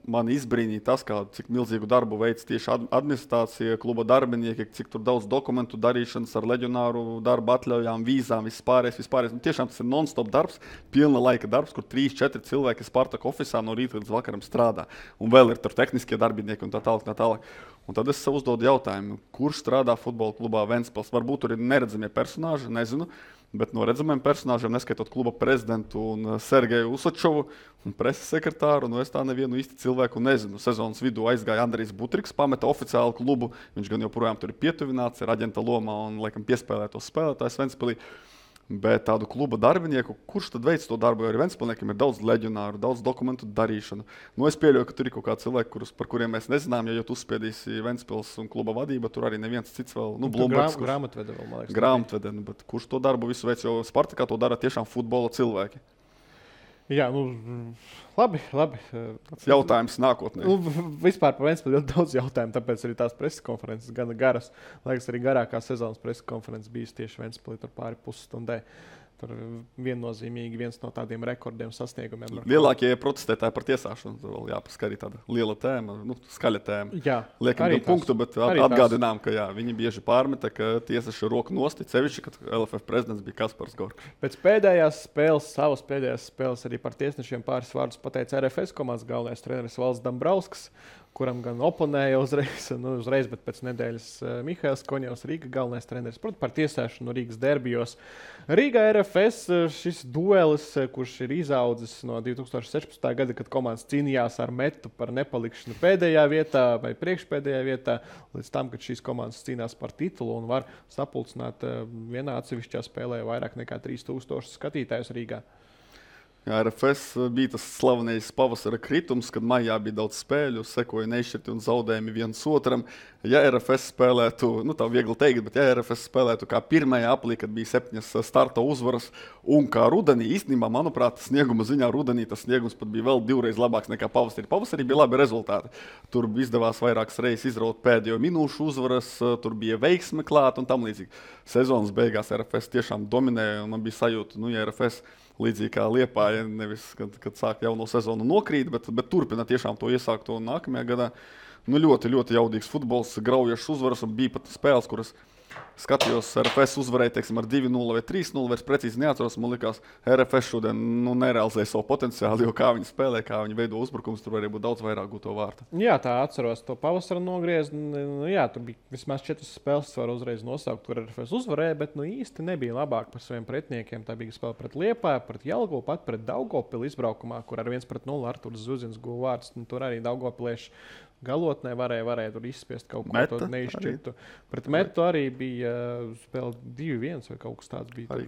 man izbrīnīja tas, cik milzīgu darbu veic tieši administrācija, kluba darbinieki, cik tur daudz dokumentu darīšanas ar leģionāru darbu atļaujām, vīzām, vispārējais. Tiešām tas ir non-stop darbs, pilna laika darbs, kur 3-4 cilvēki Spartaka ofisā no rīta līdz vakaram strādā. Un vēl ir tur tehniskie darbinieki un tā tālāk. Un tad es sev uzdodu jautājumu, kurš strādā futbola klubā Ventspils. Varbūt tur ir neredzamie personāži, nezinu, bet no redzamiem personāžiem, neskaitot kluba prezidentu un Sergeju Usačovu un preses sekretāru, es tā nevienu īsti cilvēku nezinu. Sezonas vidū aizgāja Andrijs Butriks, pameta oficiālu klubu, viņš gan joprojām tur ir pietuvināts, ir aģenta lomā un laikam piespēlē tos spēlētājs Ventspilī. Bet tādu kluba darbinieku, kurš tad veic to darbu, jo arī Ventspilniekiem ir daudz leģionāru, daudz dokumentu darīšanu. Es pieļauju, ka tur ir kaut kādi cilvēki, par kuriem mēs nezinām, ja tu uzspiedīsi Ventspils un kluba vadība, tur arī neviens cits vēl, Blumbergs. Grāmatvede vēl, man liekas. Grāmatvede, bet kurš to darbu visu veic, jo Spartakā to dara tiešām futbola cilvēki. Jā, labi. Jautājums nākotnē. Vispār par Ventspili ļoti daudz jautājumu, tāpēc arī tās preses konferences gana garas. Liekas, arī garākā sezonas preses konferences bijis tieši Ventspilī tur pāri pusstundai. Tur viennozīmīgi viens no tādiem rekordiem sasniegumiem. Lielākie protestētāji par tiesāšanu. Vēl jāpasaka arī tāda liela tēma, skaļa tēma. Jā, liekam gan punktu, bet atgādinām, ka viņi bieži pārmeta, ka tiesas ir roku nosti, sevišķi, kad LFF prezidents bija Kaspars Gorka. Pēc pēdējās spēles arī par tiesnešiem pāris vārdus pateica RFS komandas galvenais treneris Valds Dambrauskas, kuram gan oponēja uzreiz, bet pēc nedēļas Mihails Koņevs, Rīga galvenais treneris, protams, par tiesāšanu Rīgas derbijos. Rīgā RFS šis duelis, kurš ir izaudzis no 2016. gada, kad komandas cīnījās ar Metu par nepalikšanu pēdējā vietā vai priekšpēdējā vietā, līdz tam, kad šīs komandas cīnās par titulu un var sapulcināt vienā atsevišķā spēlē vairāk nekā 3000 skatītājus Rīgā. Jā, RFS bija tas slavenais pavasara kritums, kad maijā bija daudz spēļu, sekoja neizšķirti un zaudējumi viens otram. Ja RFS spēlētu, tā viegli teikt, bet ja RFS spēlētu kā pirmajā aplī, kad bija 7 starta uzvaras, un kā rudenī, īstenībā, manuprāt, snieguma ziņā rudenī tas sniegums pat bija vēl 2 reizes labāks nekā pavasarī. Pavasarī bija labi rezultāti. Tur izdevās vairākas reizes izraut pēdējo minūšu uzvaras, tur bija veiksme klāt un tam līdzīgi. Sezonas beigās RFS tiešām dominēja, un man bija sajūta, ja RFS līdzīgi kā Liepāja, nevis, kad sāk jauno sezonu nokrīt, bet turpina tiešām to iesākto nākamajā gadā. Ļoti, ļoti jaudīgs futbols, graujošs uzvaras, un bija pat spēles, kuras skatījos, RFS uzvarēja, teiksim, ar 2-0 vai 3-0, vairs precīzi neatceros. Man likās, RFS šodien nerealizēja savu potenciālu, jo kā viņi spēlē, kā viņi veido uzbrukums, tur varēja būt daudz vairāk gūto vārtu. Jā, tā atceros to pavasara nogriezni. Jā, tur bija vismaz 4 spēles, var uzreiz nosaukt, kur RFS uzvarēja, bet īsti nebija labāk par saviem pretiniekiem. Tā bija spēle pret Liepāju, pret Jelgavu, pat pret Daugavpili izbraukumā, kur ar 1-0 Arturs Zuzins guva vārdus. Tur arī Daugavpilieši galotnē varēja tur izspiest kaut ko tādu neizšķirtu. Pret Metu arī bija spēle 2-1 vai kaut kas tāds bija.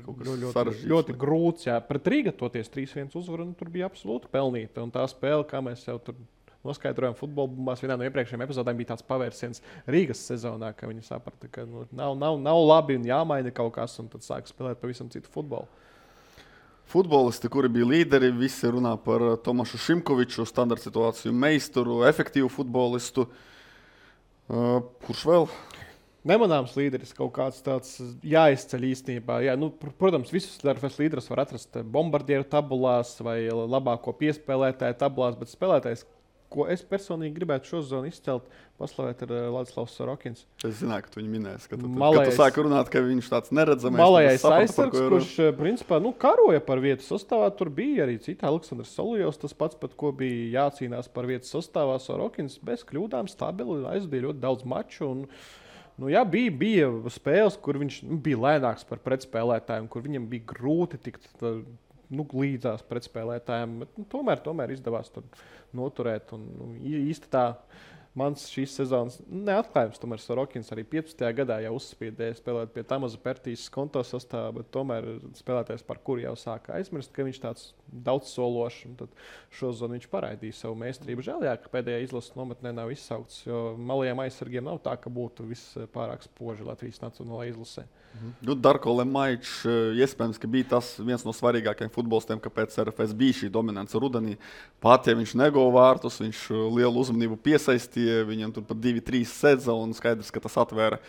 Ļoti grūts. Jā. Pret Rīga toties 3-1 uzvaru, tur bija absolūti pelnīta. Un tā spēle, kā mēs jau tur noskaidrojām futbola bumbās, vienā no iepriekšējiem epizodēm bija tāds pavērsiens Rīgas sezonā, ka viņi saprata, ka nav labi un jāmaina kaut kas, un tad sāk spēlēt pavisam citu futbolu. Futbolisti, kuri bija līderi, visi runā par Tomašu Šimkoviču, standarta situāciju meistaru, efektīvu futbolistu. Kurš vēl? Nemanāms līderis, kaut kāds tāds jāizceļ īstenībā. Jā, protams, visus RFS līderus var atrast bombardieru tabulās vai labāko piespēlētāju tabulās, bet spēlētājs, ko es personīgi gribētu šo sezonu izcelt, paslavēt ar Ladislavs Sorokins. Es zināju, ka tu viņu minēsi, ka tu Malējais- sāki runāt, ka viņš tāds neredzamais. Malējais tad es sapratu, par aizsargs, ko ir runa. kurš principā karoja par vietu sastāvā. Tur bija arī citi Aleksandrs Solijovs, tas pats, pat ko bija jācīnās par vietu sastāvā. Sorokins bez kļūdām stabili aizvadīja ļoti daudz maču. Un, jā, bija spēles, kur viņš bija lēnāks par pretspēlētājiem, kur viņam bija grūti tikt līdzās pretspēlētājiem. Bet, tomēr izdevās tur noturēt. Un īsti tā mans šīs sezonas neatklājums. Tomēr Sorokins arī 15. gadā jau uzspiedēja spēlēt pie Tamaza Pertīs konto sastāvā, bet tomēr spēlētājs, par kuru jau sāka aizmirst, ka viņš tāds daudzsološs. Tad šozonu viņš parādīja savu meistarību. Žēl, jā, ka pēdējā izlases nometnē nav izsaukts, jo malajiem aizsargiem nav tā, ka būtu viss pārāk spoži Latvijas nacionālajā izlasē. Darko Lemaičs iespējams, ka bija tas viens no svarīgākajiem futbolistiem, kāpēc RFS bija šī dominance rudenī. Pat ja viņš neguva vārtus, viņš lielu uzmanību piesaistīja, viņam tur pat 2-3 sedza un skaidrs, ka tas atvēra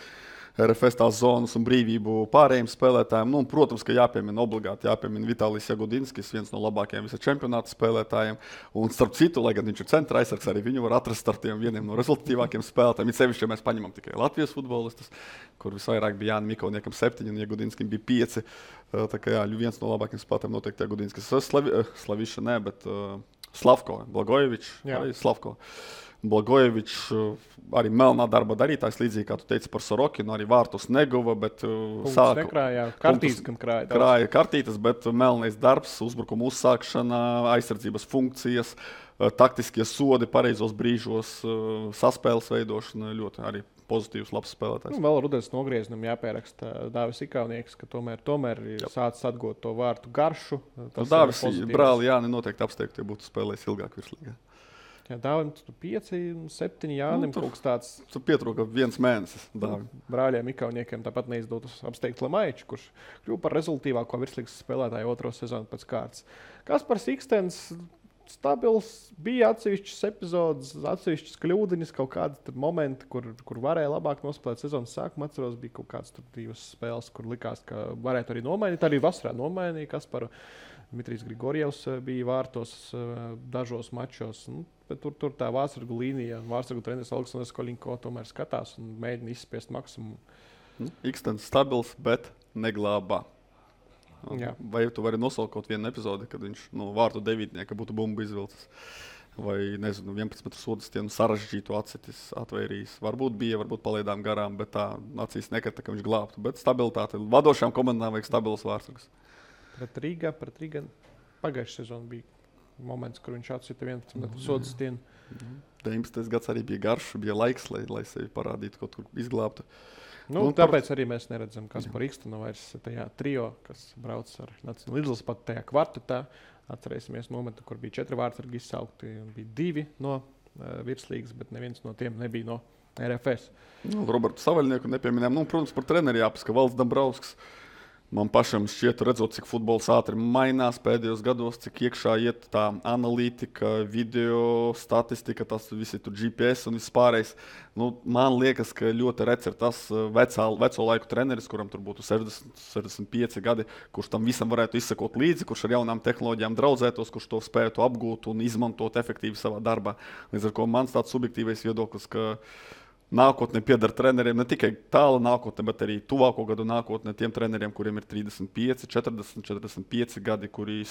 RFS tās zonas un brīvību pārējiem spēlētājiem. Protams, ka obligāti jāpiemina Vitālijs Jagudinskis, viens no labākajiem visa čempionāta spēlētājiem. Un starp citu, lai gan viņš ir centra aizsargs, arī viņu var atrast ar tiem vieniem no rezultatīvākiem spēlētājiem. It sevišķi, ja mēs paņemam tikai Latvijas futbolistus, kur visvairāk bija Jānis Mikoniekam 7 un Jagudinskim bija 5. Tā kā viens no labākajiem spēlētājiem noteikti Jagudinskis. Slaviša ne, bet Slavko, Blagojevičs, arī Slavko. Blagojevičs arī melnā darba darītājs, līdzīgi kā tu teici par Sorokinu, arī vārtus neguva, bet krāja kartītes, bet melnais darbs, uzbrukuma uzsākšana, aizsardzības funkcijas, taktiskie sodi pareizos brīžos, saspēles veidošana, ļoti arī pozitīvs, labs spēlētājs. Vēl rudens nogriezienam jāpieraksta Dāvis Ikaunieks, ka tomēr ir sācis atgūt to vārtu garšu. Dāvis brāli Jāni noteikti apsteigtu, ja būtu spēlējis ilgāk virslīgā. Jā, Dāvim 5, 7 Jānim kaut kas tāds. Tur pietrūka 1 mēnesis. Brāļiem Ikauniekiem tāpat neizdodas apsteigt Lemaiču, kurš kļuva par rezultīvāko virslīgas spēlētāju otro sezonu pēc kārtas. Kaspars Ikstens stabils, bija atsevišķas epizodes, atsevišķas kļūdiņas, kaut kādi momenti, kur varēja labāk nospēlēt sezonas sākumu. Atceros, bija kaut kādas 2 spēles, kur likās, ka varētu arī nomainīt. Arī vasarā nomainīja Kasparu. Dmitrijs Grigorjevs bija vārtos dažos mačos. Bet tur tā vārtsargu līnija, vārtsargu treneris Aleksandrs Koļinko tomēr skatās un mēģina izspiest maksimumu. Ikstens stabils, bet neglābā. Jā. Vai tu vari nosaukt kaut vienu epizodi, kad viņš vārtu devītnieka būtu bumbu izvilcis? Vai, nezinu, 11 metru sodu stienu sarežģītu atsitis atvairījis? Varbūt bija, varbūt palaidām garām, bet tā acīs nekrita, ka viņš glābtu. Bet stabilitāte. Vadošajām komandām vajag stabilas vārtsargus. Pret Rīgā pagājušajā sezonā bija moments, kur viņš atsita 11 metru sodu stienu. 19. gads arī bija garš, bija laiks, lai sevi parādītu, kaut kur izglābtu. Tāpēc arī mēs neredzam, kas par Ikstenu vairs tajā trio, kas brauc ar nacionālo izlasi pat tajā kvartetā. Atcerēsimies momentu, kur bija 4 vārtsargi izsaukti un bija 2 no virslīgas, bet neviens no tiem nebija no RFS. Robertu Savaļnieku nepieminējām. Protams, par treneri jāpasaka Valds Dambrausks. Man pašam šķiet, redzot, cik futbols ātri mainās pēdējos gados, cik iekšā iet tā analītika, video, statistika, tas visi tur GPS un viss pārējais. Man liekas, ka ļoti rets ir tas veco laiku treneris, kuram tur būtu 60, 65 gadi, kurš tam visam varētu izsekot līdzi, kurš ar jaunām tehnoloģijām draudzētos, kurš to spētu apgūt un izmantot efektīvi savā darbā. Līdz ar ko mans tāds subjektīvais viedoklis, ka nākotnē pieder treneriem ne tikai tāla nākotne, bet arī tuvāko gadu nākotnē tiem treneriem, kuriem ir 35, 40, 45 gadi, kuri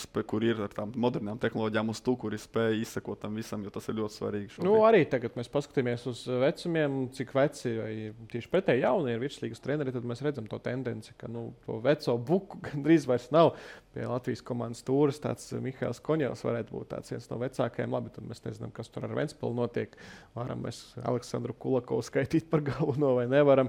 ir ar tām modernām tehnoloģijām uz to, kuri spēj izsekot tam visam, jo tas ir ļoti svarīgi. Arī tagad mēs paskatāmies uz vecumiem, cik veci vai tieši pretēji jaunie ir virslīgas treneri, tad mēs redzam to tendenci, ka to veco buku gandrīz vairs nav. Pie Latvijas komandas stūres tāds Mihails Koņevs varētu būt tāds viens no vecākajiem. Labi, tad mēs nezinām, kas tur ar Ventspili notiek. Varam mēs Aleksandru Kulakovu skaitīt par galveno vai nevaram.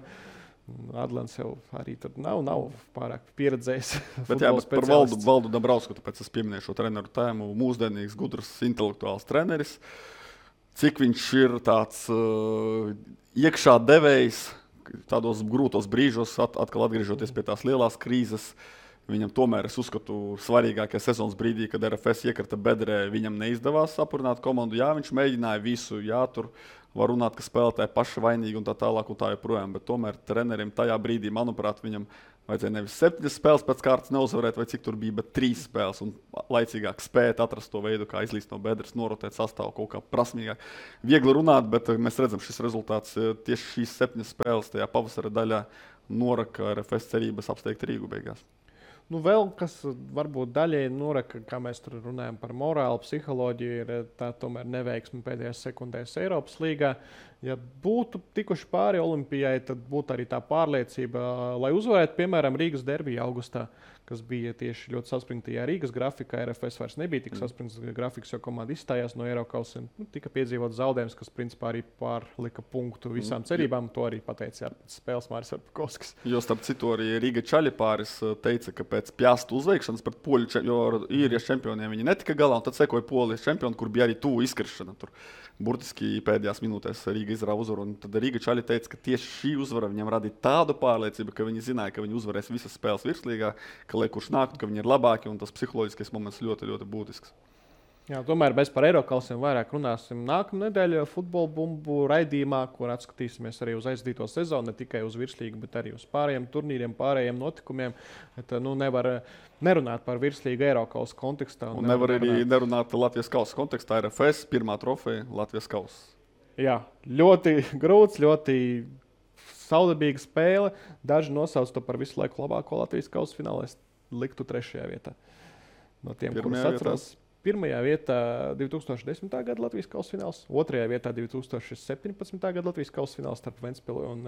Adlants jau arī tur nav pārāk pieredzējis. Bet jā, bet par Valdu Dambrausku, tāpēc es pieminēju šo treneru tēmu. Mūsdienīgs, gudrs, intelektuāls treneris. Cik viņš ir tāds iekšā devējs tādos grūtos brīžos, atkal atgriežoties pie tās lielās krīzes. Viņam tomēr, es uzskatu, svarīgākajā sezonas brīdī, kad RFS iekrita bedrē, viņam neizdevās sapurināt komandu. Jā, viņš mēģināja visu, jā, tur var runāt, ka spēlētāji paši vainīgi un tā tālāk un tā joprojām, bet tomēr trenerim tajā brīdī, manuprāt, viņam vajadzēja nevis 7 spēles pēc kārtas neuzvarēt, vai cik tur bija, bet 3 spēles un laicīgāk spēt atrast to veidu, kā izlīst no bedres, norotēt sastāvu kaut kā prasmīgāk. Viegli runāt, bet mēs redzam, šis rezultāts tieši šīs 7 spēles tajā pavasara daļā noraka RFS cerības apsteigt Rīgu beigās. Nu, vēl kas varbūt daļēji noraka, kā mēs tur runājam par morālu, psiholoģiju, ir tā tomēr neveiksme pēdējās sekundēs Eiropas līgā. Ja būtu tikuši pāri Olimpijai, tad būtu arī tā pārliecība, lai uzvarētu, piemēram, Rīgas derbiju augustā, kas bija tieši ļoti saspringtajā Rīgas grafikā. RFS vairs nebija tik saspringts grafiks, jo komanda izstājās no Eirokausiem. Tika piedzīvots zaudējums, kas principā arī pārlika punktu visām cerībām. To arī pateica pēc spēles Māris Arpakovskis. Jo starp citu arī Rīga Čaļipāris teica, ka pēc Pjastu uzveikšanas pret poļu, jo īrijas čempioniem viņi netika galā, un tad sekoja polijas čempioni, kur bija arī tuvu izkrišana. Tur burtiski pēdējās minūtēs Rīga izrāva uzvaru. Tad Rīga Čaļi teica, ka tieši šī uzvara viņam radīja tādu pārliecību, ka viņi zināja, ka viņi uzvarēs visas spēles virslīgā, ka lai kurš nāktu, ka viņi ir labāki, un tas psiholoģiskais moments ļoti, ļoti būtisks. Jā, tomēr mēs par Eirokausiem vairāk runāsim nākamā nedēļa futbola bumbu raidījumā, kur atskatīsimies arī uz aizdīto sezonu, ne tikai uz virslīgu, bet arī uz pārējiem turnīriem, pārējiem notikumiem. Bet, nevar nerunāt par virslīgu Eirokausu kontekstā. Un nevar arī nerunāt Latvijas kausa kontekstā. RFS pirmā trofeja Latvijas kausa. Jā, ļoti grūts, ļoti saudabīga spēle. Daži nosauc to par visu laiku labāko Latvijas kausa finālu. Es liktu 3. vietā. No tiem, kurus atceros. 1. vietā 2010. gada Latvijas kausa fināls, 2. vietā 2017. gada Latvijas kausa fināls starp Ventspili un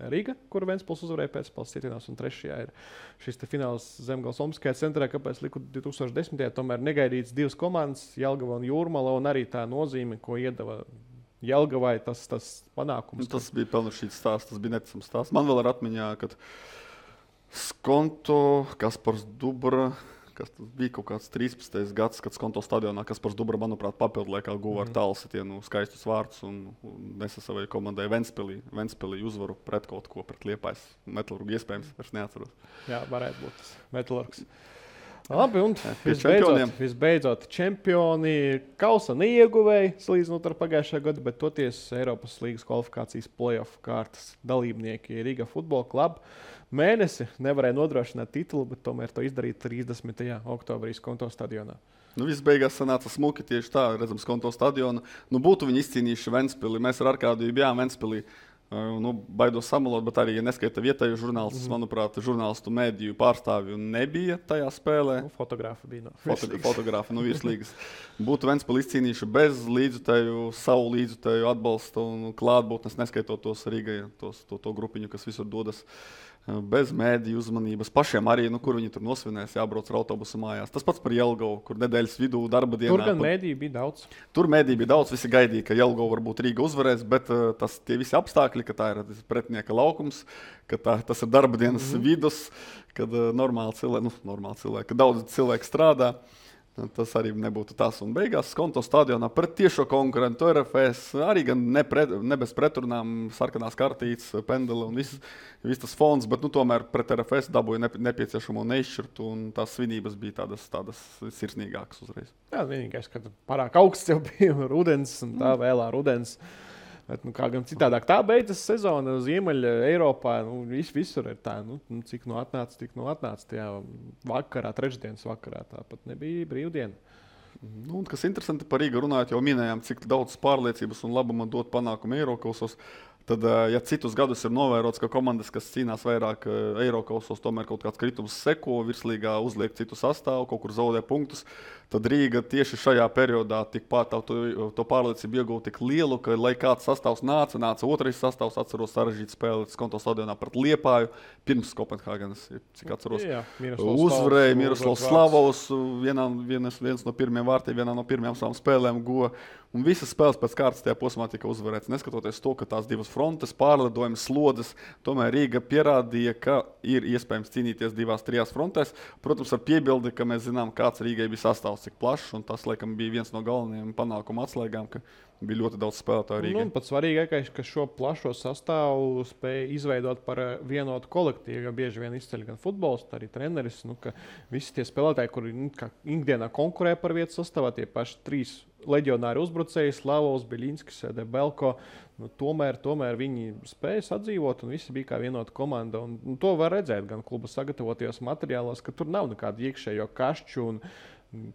Riga, kuru Ventspils uzvarēja pēcspēles citienās, un 3. ir šis fināls Zemgales Olimpiskajā centrā, kāpēc liku 2010. Tomēr negaidīts 2 komandas, Jelgava un Jūrmala, un arī tā nozīme, ko iedeva Jelgavai, tas panākums. Tas bija pelnušķīts stāsts, tas bija neticams stāsts. Man vēl ir atmiņā, kad Skonto, Kaspars Dubra, kas bija kaut kāds 13. gads, kad Skonto stadionā Kaspars Dubra, manuprāt, papildu laikā guva ar tālsitienu skaistus vārdus un nesa savai komandai Ventspilī uzvaru pret kaut ko, pret Liepājas Metalurgu, iespējams, vairs neatceros. Jā, varētu būt tas Metalurgs. Labi, un visbeidzot čempioni kausa neieguvēja, salīdzinot ar pagājušā gadu, bet toties Eiropas līgas kvalifikācijas play-off kārtas dalībnieki Riga Futbola kluba mēnesi nevarēja nodrošināt titulu, bet tomēr to izdarīt 30. oktobrī Skonto stadionā. Viss beigās sanāca smuki tieši tā, redzam Skonto stadionu. Būtu viņi izcīnījuši Ventspili. Mēs ar Arkādiju bijām Ventspilī. Baidos samalot, bet arī, ja neskaita vietēju žurnālistus, manuprāt, žurnālistu mediju pārstāvju nebija tajā spēlē. Fotogrāfi bija Fotogrāfi no virslīgas. Būtu Ventspili izcīnījuši bez līdzutēju, savu līdzutēju atbalstu un klātbūtnes, neskaitot tos Rīgai, to grupiņu, kas visur dodas. Bez mēdīju uzmanības. Pašiem arī, kur viņi tur nosvinēs, jābrauc ar autobusu mājās. Tas pats par Jelgavu, kur nedēļas vidū darba dienā. Tur gan mēdīju bija daudz. Tur mēdīju bija daudz, visi gaidīja, ka Jelgavu varbūt Rīga uzvarēs, bet tie visi apstākļi, ka tā ir pretinieka laukums, ka tas ir darba dienas vidus, kad normāli cilvēki, kad daudz cilvēku strādā. Tas arī nebūtu tas. Un beigās Skonto stadionā pret tiešo konkurentu RFS arī gan ne bez pretrunām, sarkanās kartītes, pendeli un viss tas fons, bet tomēr pret RFS dabūja nepieciešamo neizšķirtu, un tās svinības bija tādas sirsnīgākas uzreiz. Jā, vienīgais, ka pārāk augsts jau bija rudens, un tā vēlā rudens. Bet, kā gan citādāk, tā beidzas sezona Ziemeļa Eiropā. Visur ir tā, cik atnāca, tik atnāca. Tajā vakarā, trešdienas vakarā, tāpat nebija brīvdiena. Kas interesanti par Rīgu runājot, jau minējām, cik daudz pārliecības un labuma dot panākumu Eirokausos. Tad, ja citus gadus ir novērots, ka komandas, kas cīnās vairāk Eirokausos, tomēr kaut kāds kritums seko, virslīgā uzliek citu sastāvu, kaut kur zaudē punktus, tad Rīga tieši šajā periodā tikpat to pārliecību iegūta tik lielu, ka, lai kāds sastāvs nāca otrais sastāvs, atceros sarežģīt spēli Skonto stadionā pret Liepāju, pirms Kopenhāgenes, cik atceros. Uzvarēja Miroslavs Slavovs, viens no pirmiem vārtiem, vienā no pirmajām savām spēlēm guva. Un visas spēles pēc kārtas tajā posmā tika uzvarētas. Neskatoties to, ka tās divas frontes, pārlidojumas, slodzes, tomēr Rīga pierādīja, ka ir iespējams cīnīties 2-3 frontēs. Protams, ar piebildi, ka mēs zinām, kāds Rīgai bija sastāvs, cik plašs, un tas, laikam, bija viens no galvenajiem panākuma atslēgām, ka bija ļoti daudz spēlētāju Rīgai. Pats svarīgākais, ka šo plašo sastāvu spēja izveidot par vienotu kolektīvu, jo bieži vien izceļ gan futbolists, arī treneris, ka visi tie spēlētāji, kuri ikdienā konkurē par vietu sastāvā, tie paši 3 leģionāri uzbrucēji, Slavovs, Biļinskis, Debelko, tomēr viņi spēja sadzīvot un visi bija kā vienota komanda. Un to var redzēt gan kluba sagatavotajos materiālos, ka tur nav nekādu iekšējo kašķu un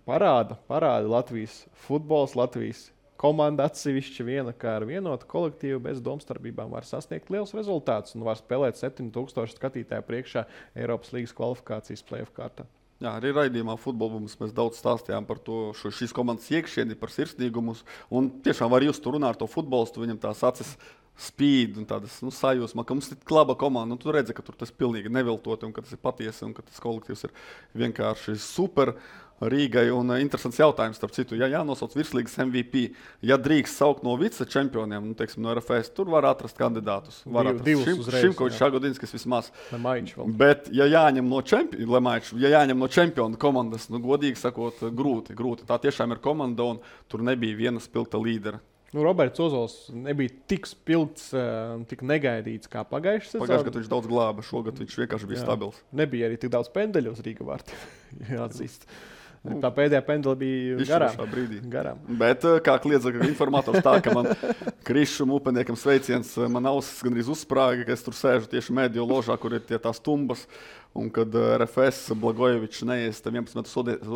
parāda Latvijas futbols, Latvijas komanda atsevišķi viena, kā ar vienotu kolektīvu bez domstarpībām var sasniegt liels rezultāts un var spēlēt 7000 skatītāju priekšā Eiropas līgas kvalifikācijas play-off kārtā. Jā, arī raidījumā futbolbums mēs daudz stāstījām par to, šīs komandas iekšieni, par sirsnīgumus. Un tiešām var just tur runāt ar to futbolistu, viņam tās acis spīd un tādas sajūsma, ka mums ir laba komanda. Tu redzi, ka tur tas pilnīgi neviltoti un ka tas ir patiesi un ka tas kolektīvs ir vienkārši super Rīgai. Un interesants jautājums, starp citu, ja jānosauc virslīgas MVP, ja drīkst saukt no vicečempioniem, teiksim, no RFS, tur var atrast kandidātus. Var atrast Šimkovičs, Šagodinskis vismaz. Bet, ja jāņem no čempionu komandas, godīgi sakot, grūti. Tā tiešām ir komanda un tur nebija viena spilgta līdera. Roberts Ozols nebija tik spilgts, tik negaidīts kā pagājušajā sezonā. Pagājušajā gadā viņš daudz glāba, šogad viņš vienkārši bija stabils. Nebija arī tik daudz pendeļu uz Rīga vārta, jāatzīst. Tā pēdējā pendela bija garām. Bet, kā kliedza informators, tā, ka man Krišam upeniekam sveiciens, man ausis gandrīz uzsprāga, ka es tur sēžu tieši mēdīju ložā, kur ir tās tumbas. Un kad RFS Blagojevičs neiesta 11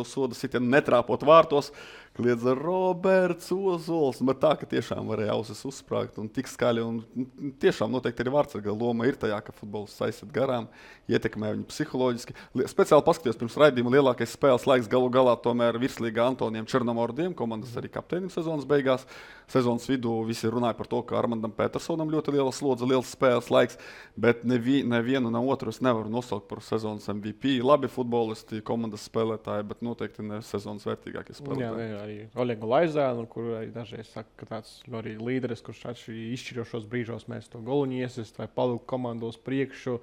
soda sitienu netrāpot vārtos, kliedza Roberts Ozols. Bet tā, ka tiešām varēja ausis uzsprāgt un tik skaļi. Un tiešām noteikti arī vārdsarga loma ir tajā, ka futbols aiziet garām, ietekmē viņu psiholoģiski. Speciāli paskatījos pirms raidījuma lielākais spēles laiks galu galā tomēr virslīgā Antonijam Černomordiem, komandas arī kapteinim sezonas beigās. Sezonas vidū visi runāja par to, ka Armandam Petersonam ļoti liela slodze, liels spēles laiks, bet nevienu, ne otru es nevaru nosaukt par sezonas MVP. Labi futbolisti, komandas spēlētāji, bet noteikti ne sezonas vērtīgākie spēlētāji. Jā, arī Oļegu Laizānu, kur arī dažreiz saka, ka tāds arī līderis, kurš izšķirošos brīžos mēs to goluņu iesist vai palūk komandos priekšu.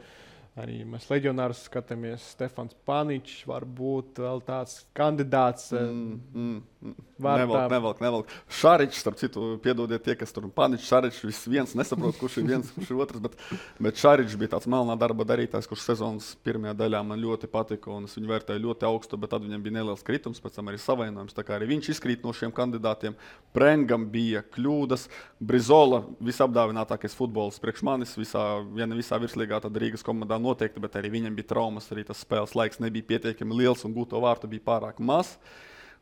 Arī mēs leģionārus skatāmies. Stefans Paničs var būt vēl tāds kandidāts. Nevelk. Šaričs, starp citu, piedodiet tie, kas tur Paničs, Šaričs, viens nesaprot, kurš ir viens, kurš ir otrs, bet Šaričs bija tāds melnā darba darītājs, kurš sezonas pirmajā daļā man ļoti patika un es viņu vērtēju ļoti augstu, bet tad viņam bija neliels kritums, pēc tam arī savainojums, tā kā arī viņš izkrīt no šiem kandidātiem. Prengam bija kļūdas, Brizola visapdāvinātākais futbols priekš manis, ja ne visā virslīgā, tad Rīgas komandā noteikti, bet arī viņam bija traumas, arī tas spēles laiks nebija pietiekami liels un gūto vārtu bija pārāk maz.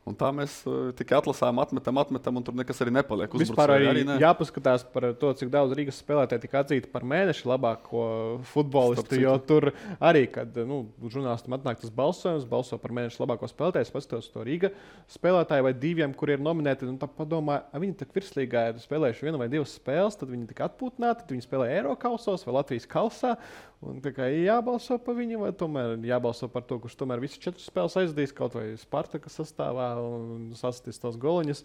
Un tā mēs tikai atlasām, atmetam, un tur nekas arī nepaliek. Vispār arī jāpaskatās par to, cik daudz Rīgas spēlētāji tika atzīti par mēneša labāko futbolistu, jo tur arī, kad žurnālistam atnāk tas balsojums, balso par mēneša labāko spēlētāju, es paskatos to Rīga spēlētāju vai diviem, kuri ir nominēti, un tā padomāju, viņi tak virslīgā ir spēlējuši 1 vai 2 spēles, tad viņi tika atpūtināti, tad viņi spēlē Eirokausos vai Latvijas kausā, un tā kā jābalso par viņu, vai tomēr jābalso par to, kurš tomēr visas 4 spēles aizdīs, kaut vai Spartaka sastāvā, un sasties tos goliņus.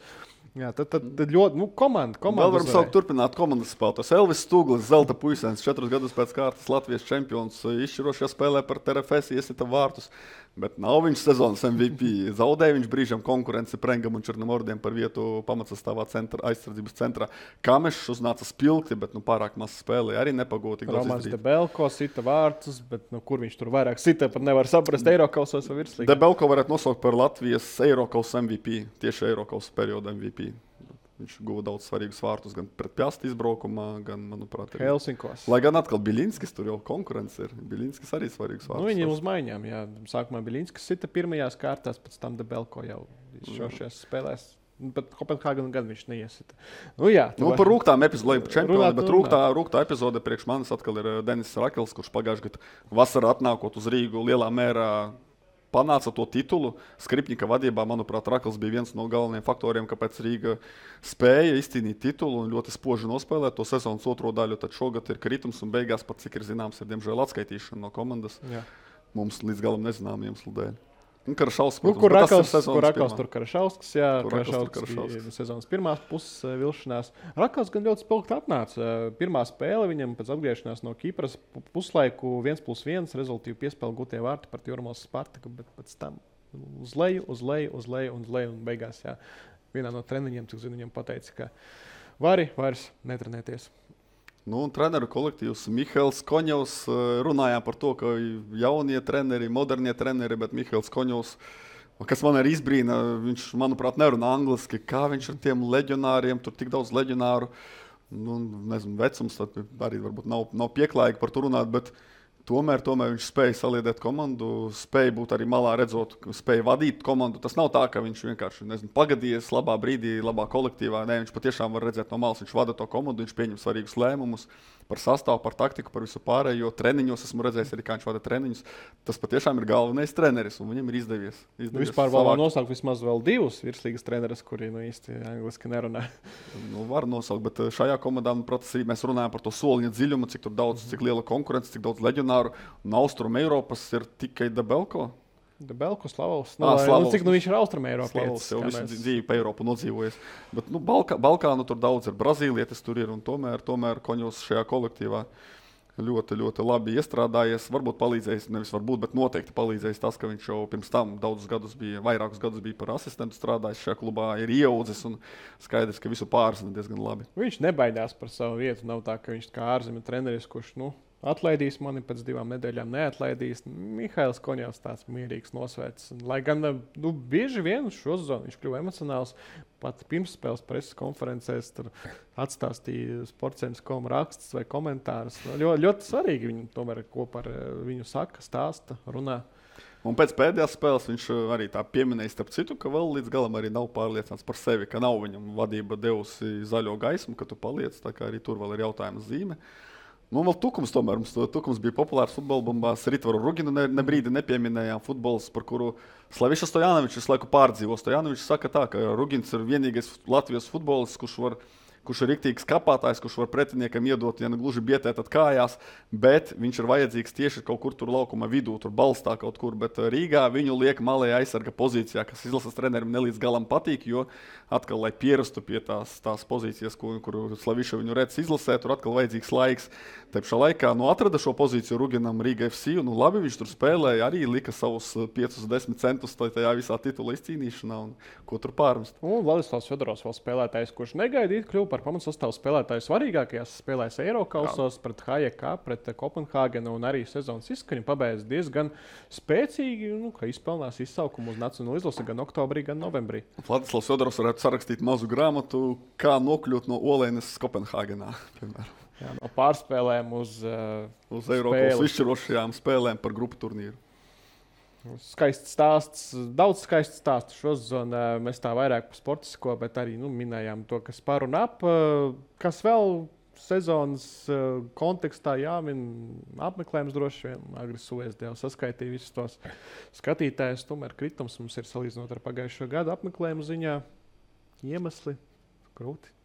Jā, tad ļoti, komanda. Vēl varam saukt turpināt komandas spēlētājus. Elvis Stūglis, zelta puisēns, 4 gadus pēc kārtas Latvijas čempions, izšķirošajā spēlē par TRFS iesita vārtus, bet nav viņš sezonas MVP. Zaudēja viņš brīžam konkurenci Prengam un Černomordiem par vietu pamatsastāvā aizsardzības centrā. Kamešs uznāca spilgti, bet pārāk maz spēlēja, arī nepagūti. Romans Debelko sita vārtus, bet kur viņš tur vairāk sita, pat nevar saprast Eirokausos vai virslīgā. Debelko varētu nosaukt par Latvijas Eirokaus MVP, tieši Eirokaus perioda MVP. Viņš guva daudz svarīgus vārtus gan pret Pjasti izbraukumā, gan, manuprāt, Helsinkos. Lai gan atkal Biļinskis, tur jau konkurence ir. Biļinskis arī svarīgs vārtus. Viņiem uz maiņām, jā. Sākumā Biļinskis sita pirmajās kārtās, pēc tam Debelko jau šajās spēlēs. Bet Kopenhāgenu gan viņš neiesita. Par rūgtām epizodēm par čempionu, bet rūgtā epizode priekš manis atkal ir Denis Rakels, kurš pagājušajā gadā vasarā atnākot uz Rīgu lielā mērā panāca to titulu. Skripņika vadībā, manuprāt, Rakels bija viens no galvenajiem faktoriem, kāpēc Rīga spēja izcīnīt titulu un ļoti spoži nospēlēt to sezonas otro daļu. Tad šogad ir kritums un beigās, pat cik ir zināms, ir diemžēl atskaitīšana no komandas. Jā. Mums līdz galam nezinām iemeslu dēļ. Karašauskas, Kur Rakals tur Karašauskas, jā, Karašauskas bija sezonas pirmās puses vilšanās. Rakals gan ļoti spilgti atnāca. Pirmā spēle viņam pēc atgriešanās no Kipras puslaiku 1+1 rezultīvi piespēle gūtie vārti par Jurmos Spartaku, bet pēc tam uz leju un beigās, jā, vienā no treniņiem, cik zinu, viņam pateica, ka vari vairs netrenēties. Un treneru kolektīvs Mihails Koņevs runājām par to, ka jaunie treneri, modernie treneri, bet Mihails Koņevs, kas man arī izbrīna, viņš, manuprāt, nerunā angliski, kā viņš ar tiem leģionāriem, tur tik daudz leģionāru, nezinu, vecums arī varbūt nav pieklājīgi par to runāt, bet tomēr viņš spēja saliedēt komandu, spēja būt arī malā redzot, spēja vadīt komandu. Tas nav tā, ka viņš vienkārši, pagadījies labā brīdī, labā kolektīvā. Nē, viņš patiešām var redzēt no malas, viņš vada to komandu, viņš pieņem svarīgus lēmumus par sastāvu, par taktiku, par visu pārējo. Treniņos esmu redzējis arī, kā viņš vada treniņus. Tas patiešām ir galvenais treneris, un viņam ir izdevies. Vispār vēl var nosaukt vismaz vēl divus virslīgas treneris, kuri īsti angliski nerunā. Var nosaukt, bet šajā komandā, protams, mēs runājam par to soliņa dziļumu, cik tur daudz, cik liela konkurence, cik daudz leģionāru. Un Austrum Eiropas ir tikai Debelko. Debelko, Slavovs. Slavovs. Cik viņš ir Austrum Eiropas? Slavovs jau visu dzīvi pa Eiropu nodzīvojies. Bet Balkānu tur daudz ir, Brazīlietis tur ir, un tomēr Koņos šajā kolektīvā ļoti, ļoti labi iestrādājies. Varbūt palīdzējis, nevis varbūt, bet noteikti palīdzējis tas, ka viņš jau pirms tam vairākus gadus bija par asistentu strādājis šajā klubā, ir ieaudzis un skaidrs, ka visu pārzina diezgan labi. Viņš nebaidās par savu vietu. Nav tā, ka viņš kā ārzemju treneris, kurš, atlaidīs mani pēc 2 nedēļām, neatlaidīs. Mihails Koņevs tāds mierīgs nosvērts. Lai gan bieži vien šo zonu viņš kļuva emocionāls. Pat pirmsspēles preses konferencēs tur atstāstīja sportcentrs.com rakstus vai komentārus. Ļoti svarīgi viņi tomēr kopā ar viņu saka, stāsta, runā. Un pēc pēdējās spēles viņš arī tā pieminēja, starp citu, ka vēl līdz galam arī nav pārliecināts par sevi, ka nav viņam vadība devusi zaļo gaismu, ka tu paliec, tā kā arī tur vēl ir jautājuma zīme. Vēl Tukums tomēr. Tukums bija populārs futbola bumbās. Ritvaru Ruginu brīdi nepieminējām. Futbols, par kuru Slaviša Stojanovičs visu laiku pārdzīvo. Stojanovičs saka tā, ka Rugins ir vienīgais Latvijas futbolists, kurš ir riktīgs kapātājs, kurš var pretiniekam iedot, ja ne gluži bietēt kājās, bet viņš ir vajadzīgs tieši kaut kur tur laukuma vidū, tur balstā kaut kur. Bet Rīgā viņu liek malējā aizsarga pozīcijā, kas izlases trenerim nelīdz galam patīk, jo atkal, lai pierastu pie tās pozīcijas, kur Slaviša viņu redz izlasē, tur atkal vajadzīgs laiks. Te pašā laikā atrada šo pozīciju Ruginam Rīga FC, un labi viņš tur spēlēja, arī lika savus 5-10 centus tajā visā titula izcīnīšanā, un ko tur pārmest. Un Vladislavs Fjodorovs vēl spēlētājs, kurš negaidīt kļuva par pamatsastāvu spēlētāju svarīgākajās spēlēs Eirokausos pret HJK, pret Kopenhāgenu, un arī sezonas izskaņu pabeidz diezgan spēcīgi, ka izpelnās izsaukumu uz nacionālo izlasi gan oktobrī, gan novembrī. Vladislavs Fjodorovs varētu sarakstīt mazu grāmatu, kā nokļūt no Olēnes Kopenhāgenā, piemēram. Jā, no pārspēlēm uz Eiropas izšķirošajām spēlēm par grupu turnīru. Skaists stāsts, daudz skaists stāstu šo zonu. Mēs tā vairāk par sportisko, bet arī minējām to, kas par un ap. Kas vēl sezonas kontekstā jāmin apmeklējums droši vien. Agri Suez jau saskaitīja visus tos skatītājus. Tomēr kritums mums ir salīdzinot ar pagājušo gadu apmeklējumu ziņā. Iemesli grūti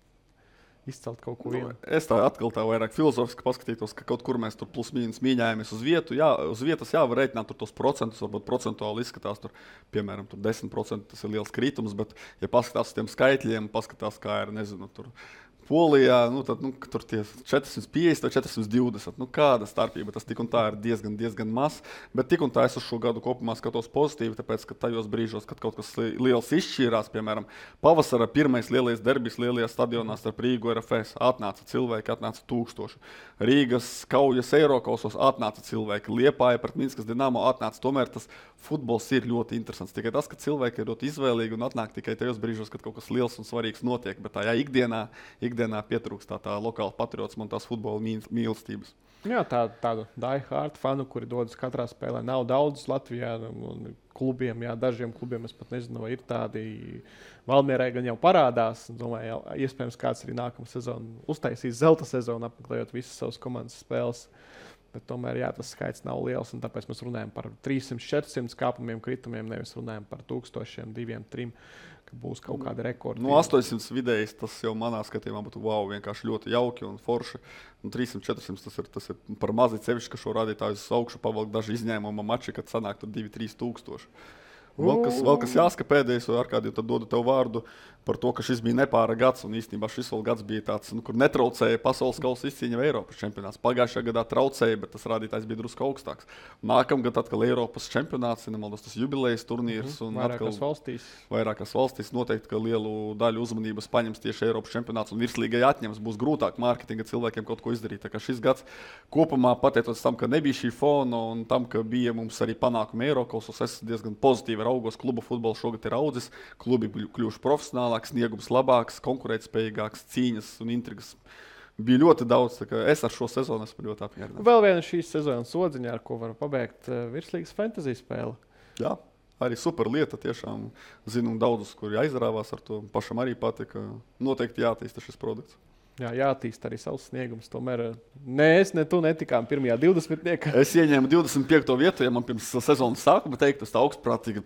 izcelt kaut ko vienu. Es tā atkal tā vairāk filozofiski paskatītos, ka kaut kur mēs tur plus mīnus mīņājamies uz vietu. Jā, uz vietas var rēķināt tur tos procentus, varbūt procentuāli izskatās tur, piemēram, tur 10% tas ir liels kritums, bet ja paskatās uz tiem skaitļiem, paskatās, kā ir, nezinu, tur Polijā, tad tur tie 450 vai 420. Kāda starpība? Tas tik un tā ir diezgan maz. Bet tik un tā es uz šo gadu kopumā skatos pozitīvi, tāpēc, ka tajos brīžos, kad kaut kas liels izšķīrās, piemēram, pavasara pirmais lielais derbis lielajā stadionā starp Rīgu un RFS, atnāca cilvēki, atnāca 1000. Rīgas kaujas Eirokausos atnāca cilvēki, Liepāja pret Minskas Dinamo atnāca. Tomēr tas futbols ir ļoti interesants. Tikai tas, ka cilvēki ir ļoti izvēlīgi un atnāk tikai tajos brīžos, kad kaut kas liels un svarīgs notiek. Bet tajā ikdienā pietrūkst tā lokāla patriotisma un tās futbola mīlestības. Jā, tādu die-hard fanu, kuri dodas katrā spēlē, nav daudz Latvijā. Klubiem, dažiem klubiem es pat nezinu, vai ir tādi. Valmierai gan jau parādās. Domāju, iespējams, kāds arī nākamā sezona uztaisīs zelta sezonu, apmeklējot visas savas komandas spēles. Bet tomēr tas skaits nav liels, un tāpēc mēs runājam par 300-400 kāpumiem, kritumiem, nevis runājam par 1000, 200, 300, ka būs kaut kāda rekorda. 800 vidējs tas jau manā skatījumā būtu vienkārši ļoti jauki un forši. 300-400 tas ir par mazi cevišķi, ka šo rādītāju uz augšu pavalk daži izņēmuma mači, kad sanāk tur 2-3 tūkstoši. Vēl kas jāsaka pēdējais, vai Arkādija, tad dodu tev vārdu par to, ka šis bija nepāra gads, un īstenībā šis vēl gads bija tāds, kur netraucēja pasaules kausa izcīņa vai Eiropas čempionāts. Pagājušajā gadā traucēja, bet tas rādītājs bija drusku augstāks. Nākamgad atkal Eiropas čempionāts, nemaldos tas jubilejas turnīrs, un vairākās valstīs noteikti, ka lielu daļu uzmanības paņems tieši Eiropas čempionāts, un virslīgai atņems, būs grūtāk mārketinga cilvēkiem kaut ko izdarīt. Tā kā šis gads kopumā, pateicoties tam, ka nebija šī fona un tam, ka bija mums arī panākumi Eirokausos, es diezgan pozitīvi raugos. Klubu futbols šogad ir audzis, klubi kļuvuši profesionāli, sniegums labāks, konkurētspējīgāks, cīņas un intrigas. Bija ļoti daudz, tā kā es ar šo sezonu esmu ļoti apmierināts. Vēl viena šīs sezonas odziņa, ar ko var pabeigt virslīgas fantasy spēle. Jā, arī super lieta, tiešām zinu daudzus, kuri aizrāvās ar to, pašam arī patika. Noteikti jātīsta šis produkts. Jā, jātīst arī savs sniegums. Tomēr ne es, ne tu netikām pirmajā 20. Es ieņēmu 25. vietu, ja man pirms sezonas sākuma teikt, tas tā augstprātīgi,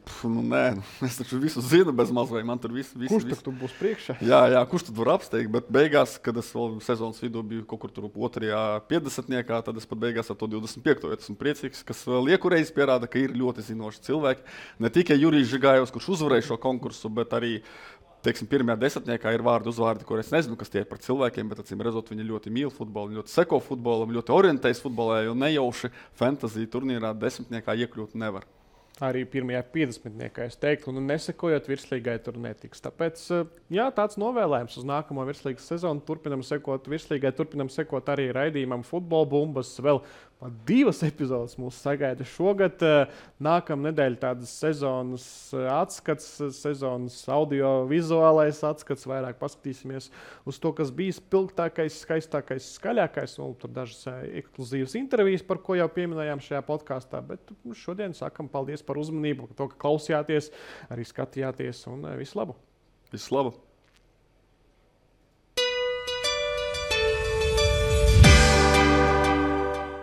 es taču visu zinu bez maz, vai man tur visu. Kurš tad tu būs priekšā? Jā, kurš tad var apsteigt, bet beigās, kad es vēl sezonas vidū biju kaut kur tur 50. tad es pat beigās ar to 25. vietu esmu priecīgs, kas vēl iekurreiz pierāda, ka ir ļoti zinoši cilvēki. Ne tikai Jurijs Žigājovs, kurš uzvarēja šo konkursu, bet arī pirmajā 10. ir vārdi uzvārdi, kur es nezinu, kas tie ir par cilvēkiem, bet acīm redzot, viņi ļoti mīl futbolu, ļoti seko futbolam, ļoti orientējas futbolā, jo nejauši fantasy turnīrā 10. iekļūt nevar. Arī pirmajā 50. es teiktu, un nesekojot virslīgai tur netiks. Tāpēc, jā, tāds novēlējums uz nākamo virslīgas sezonu. Turpinam sekot virslīgai, turpinam sekot arī raidījumam Futbola bumbas. Vēl 2 epizodes mūs sagaida šogad. Nākamā nedēļa tādas sezonas atskats, sezonas audio-vizuālais atskats. Vairāk paskatīsimies uz to, kas bija spilgtākais, skaistākais, skaļākais. Un tur dažas ekskluzīvas intervijas, par ko jau pieminējām šajā podkāstā. Bet šodien sakam paldies par uzmanību, to, ka klausījāties, arī skatījāties, un visu labu! Visu labu!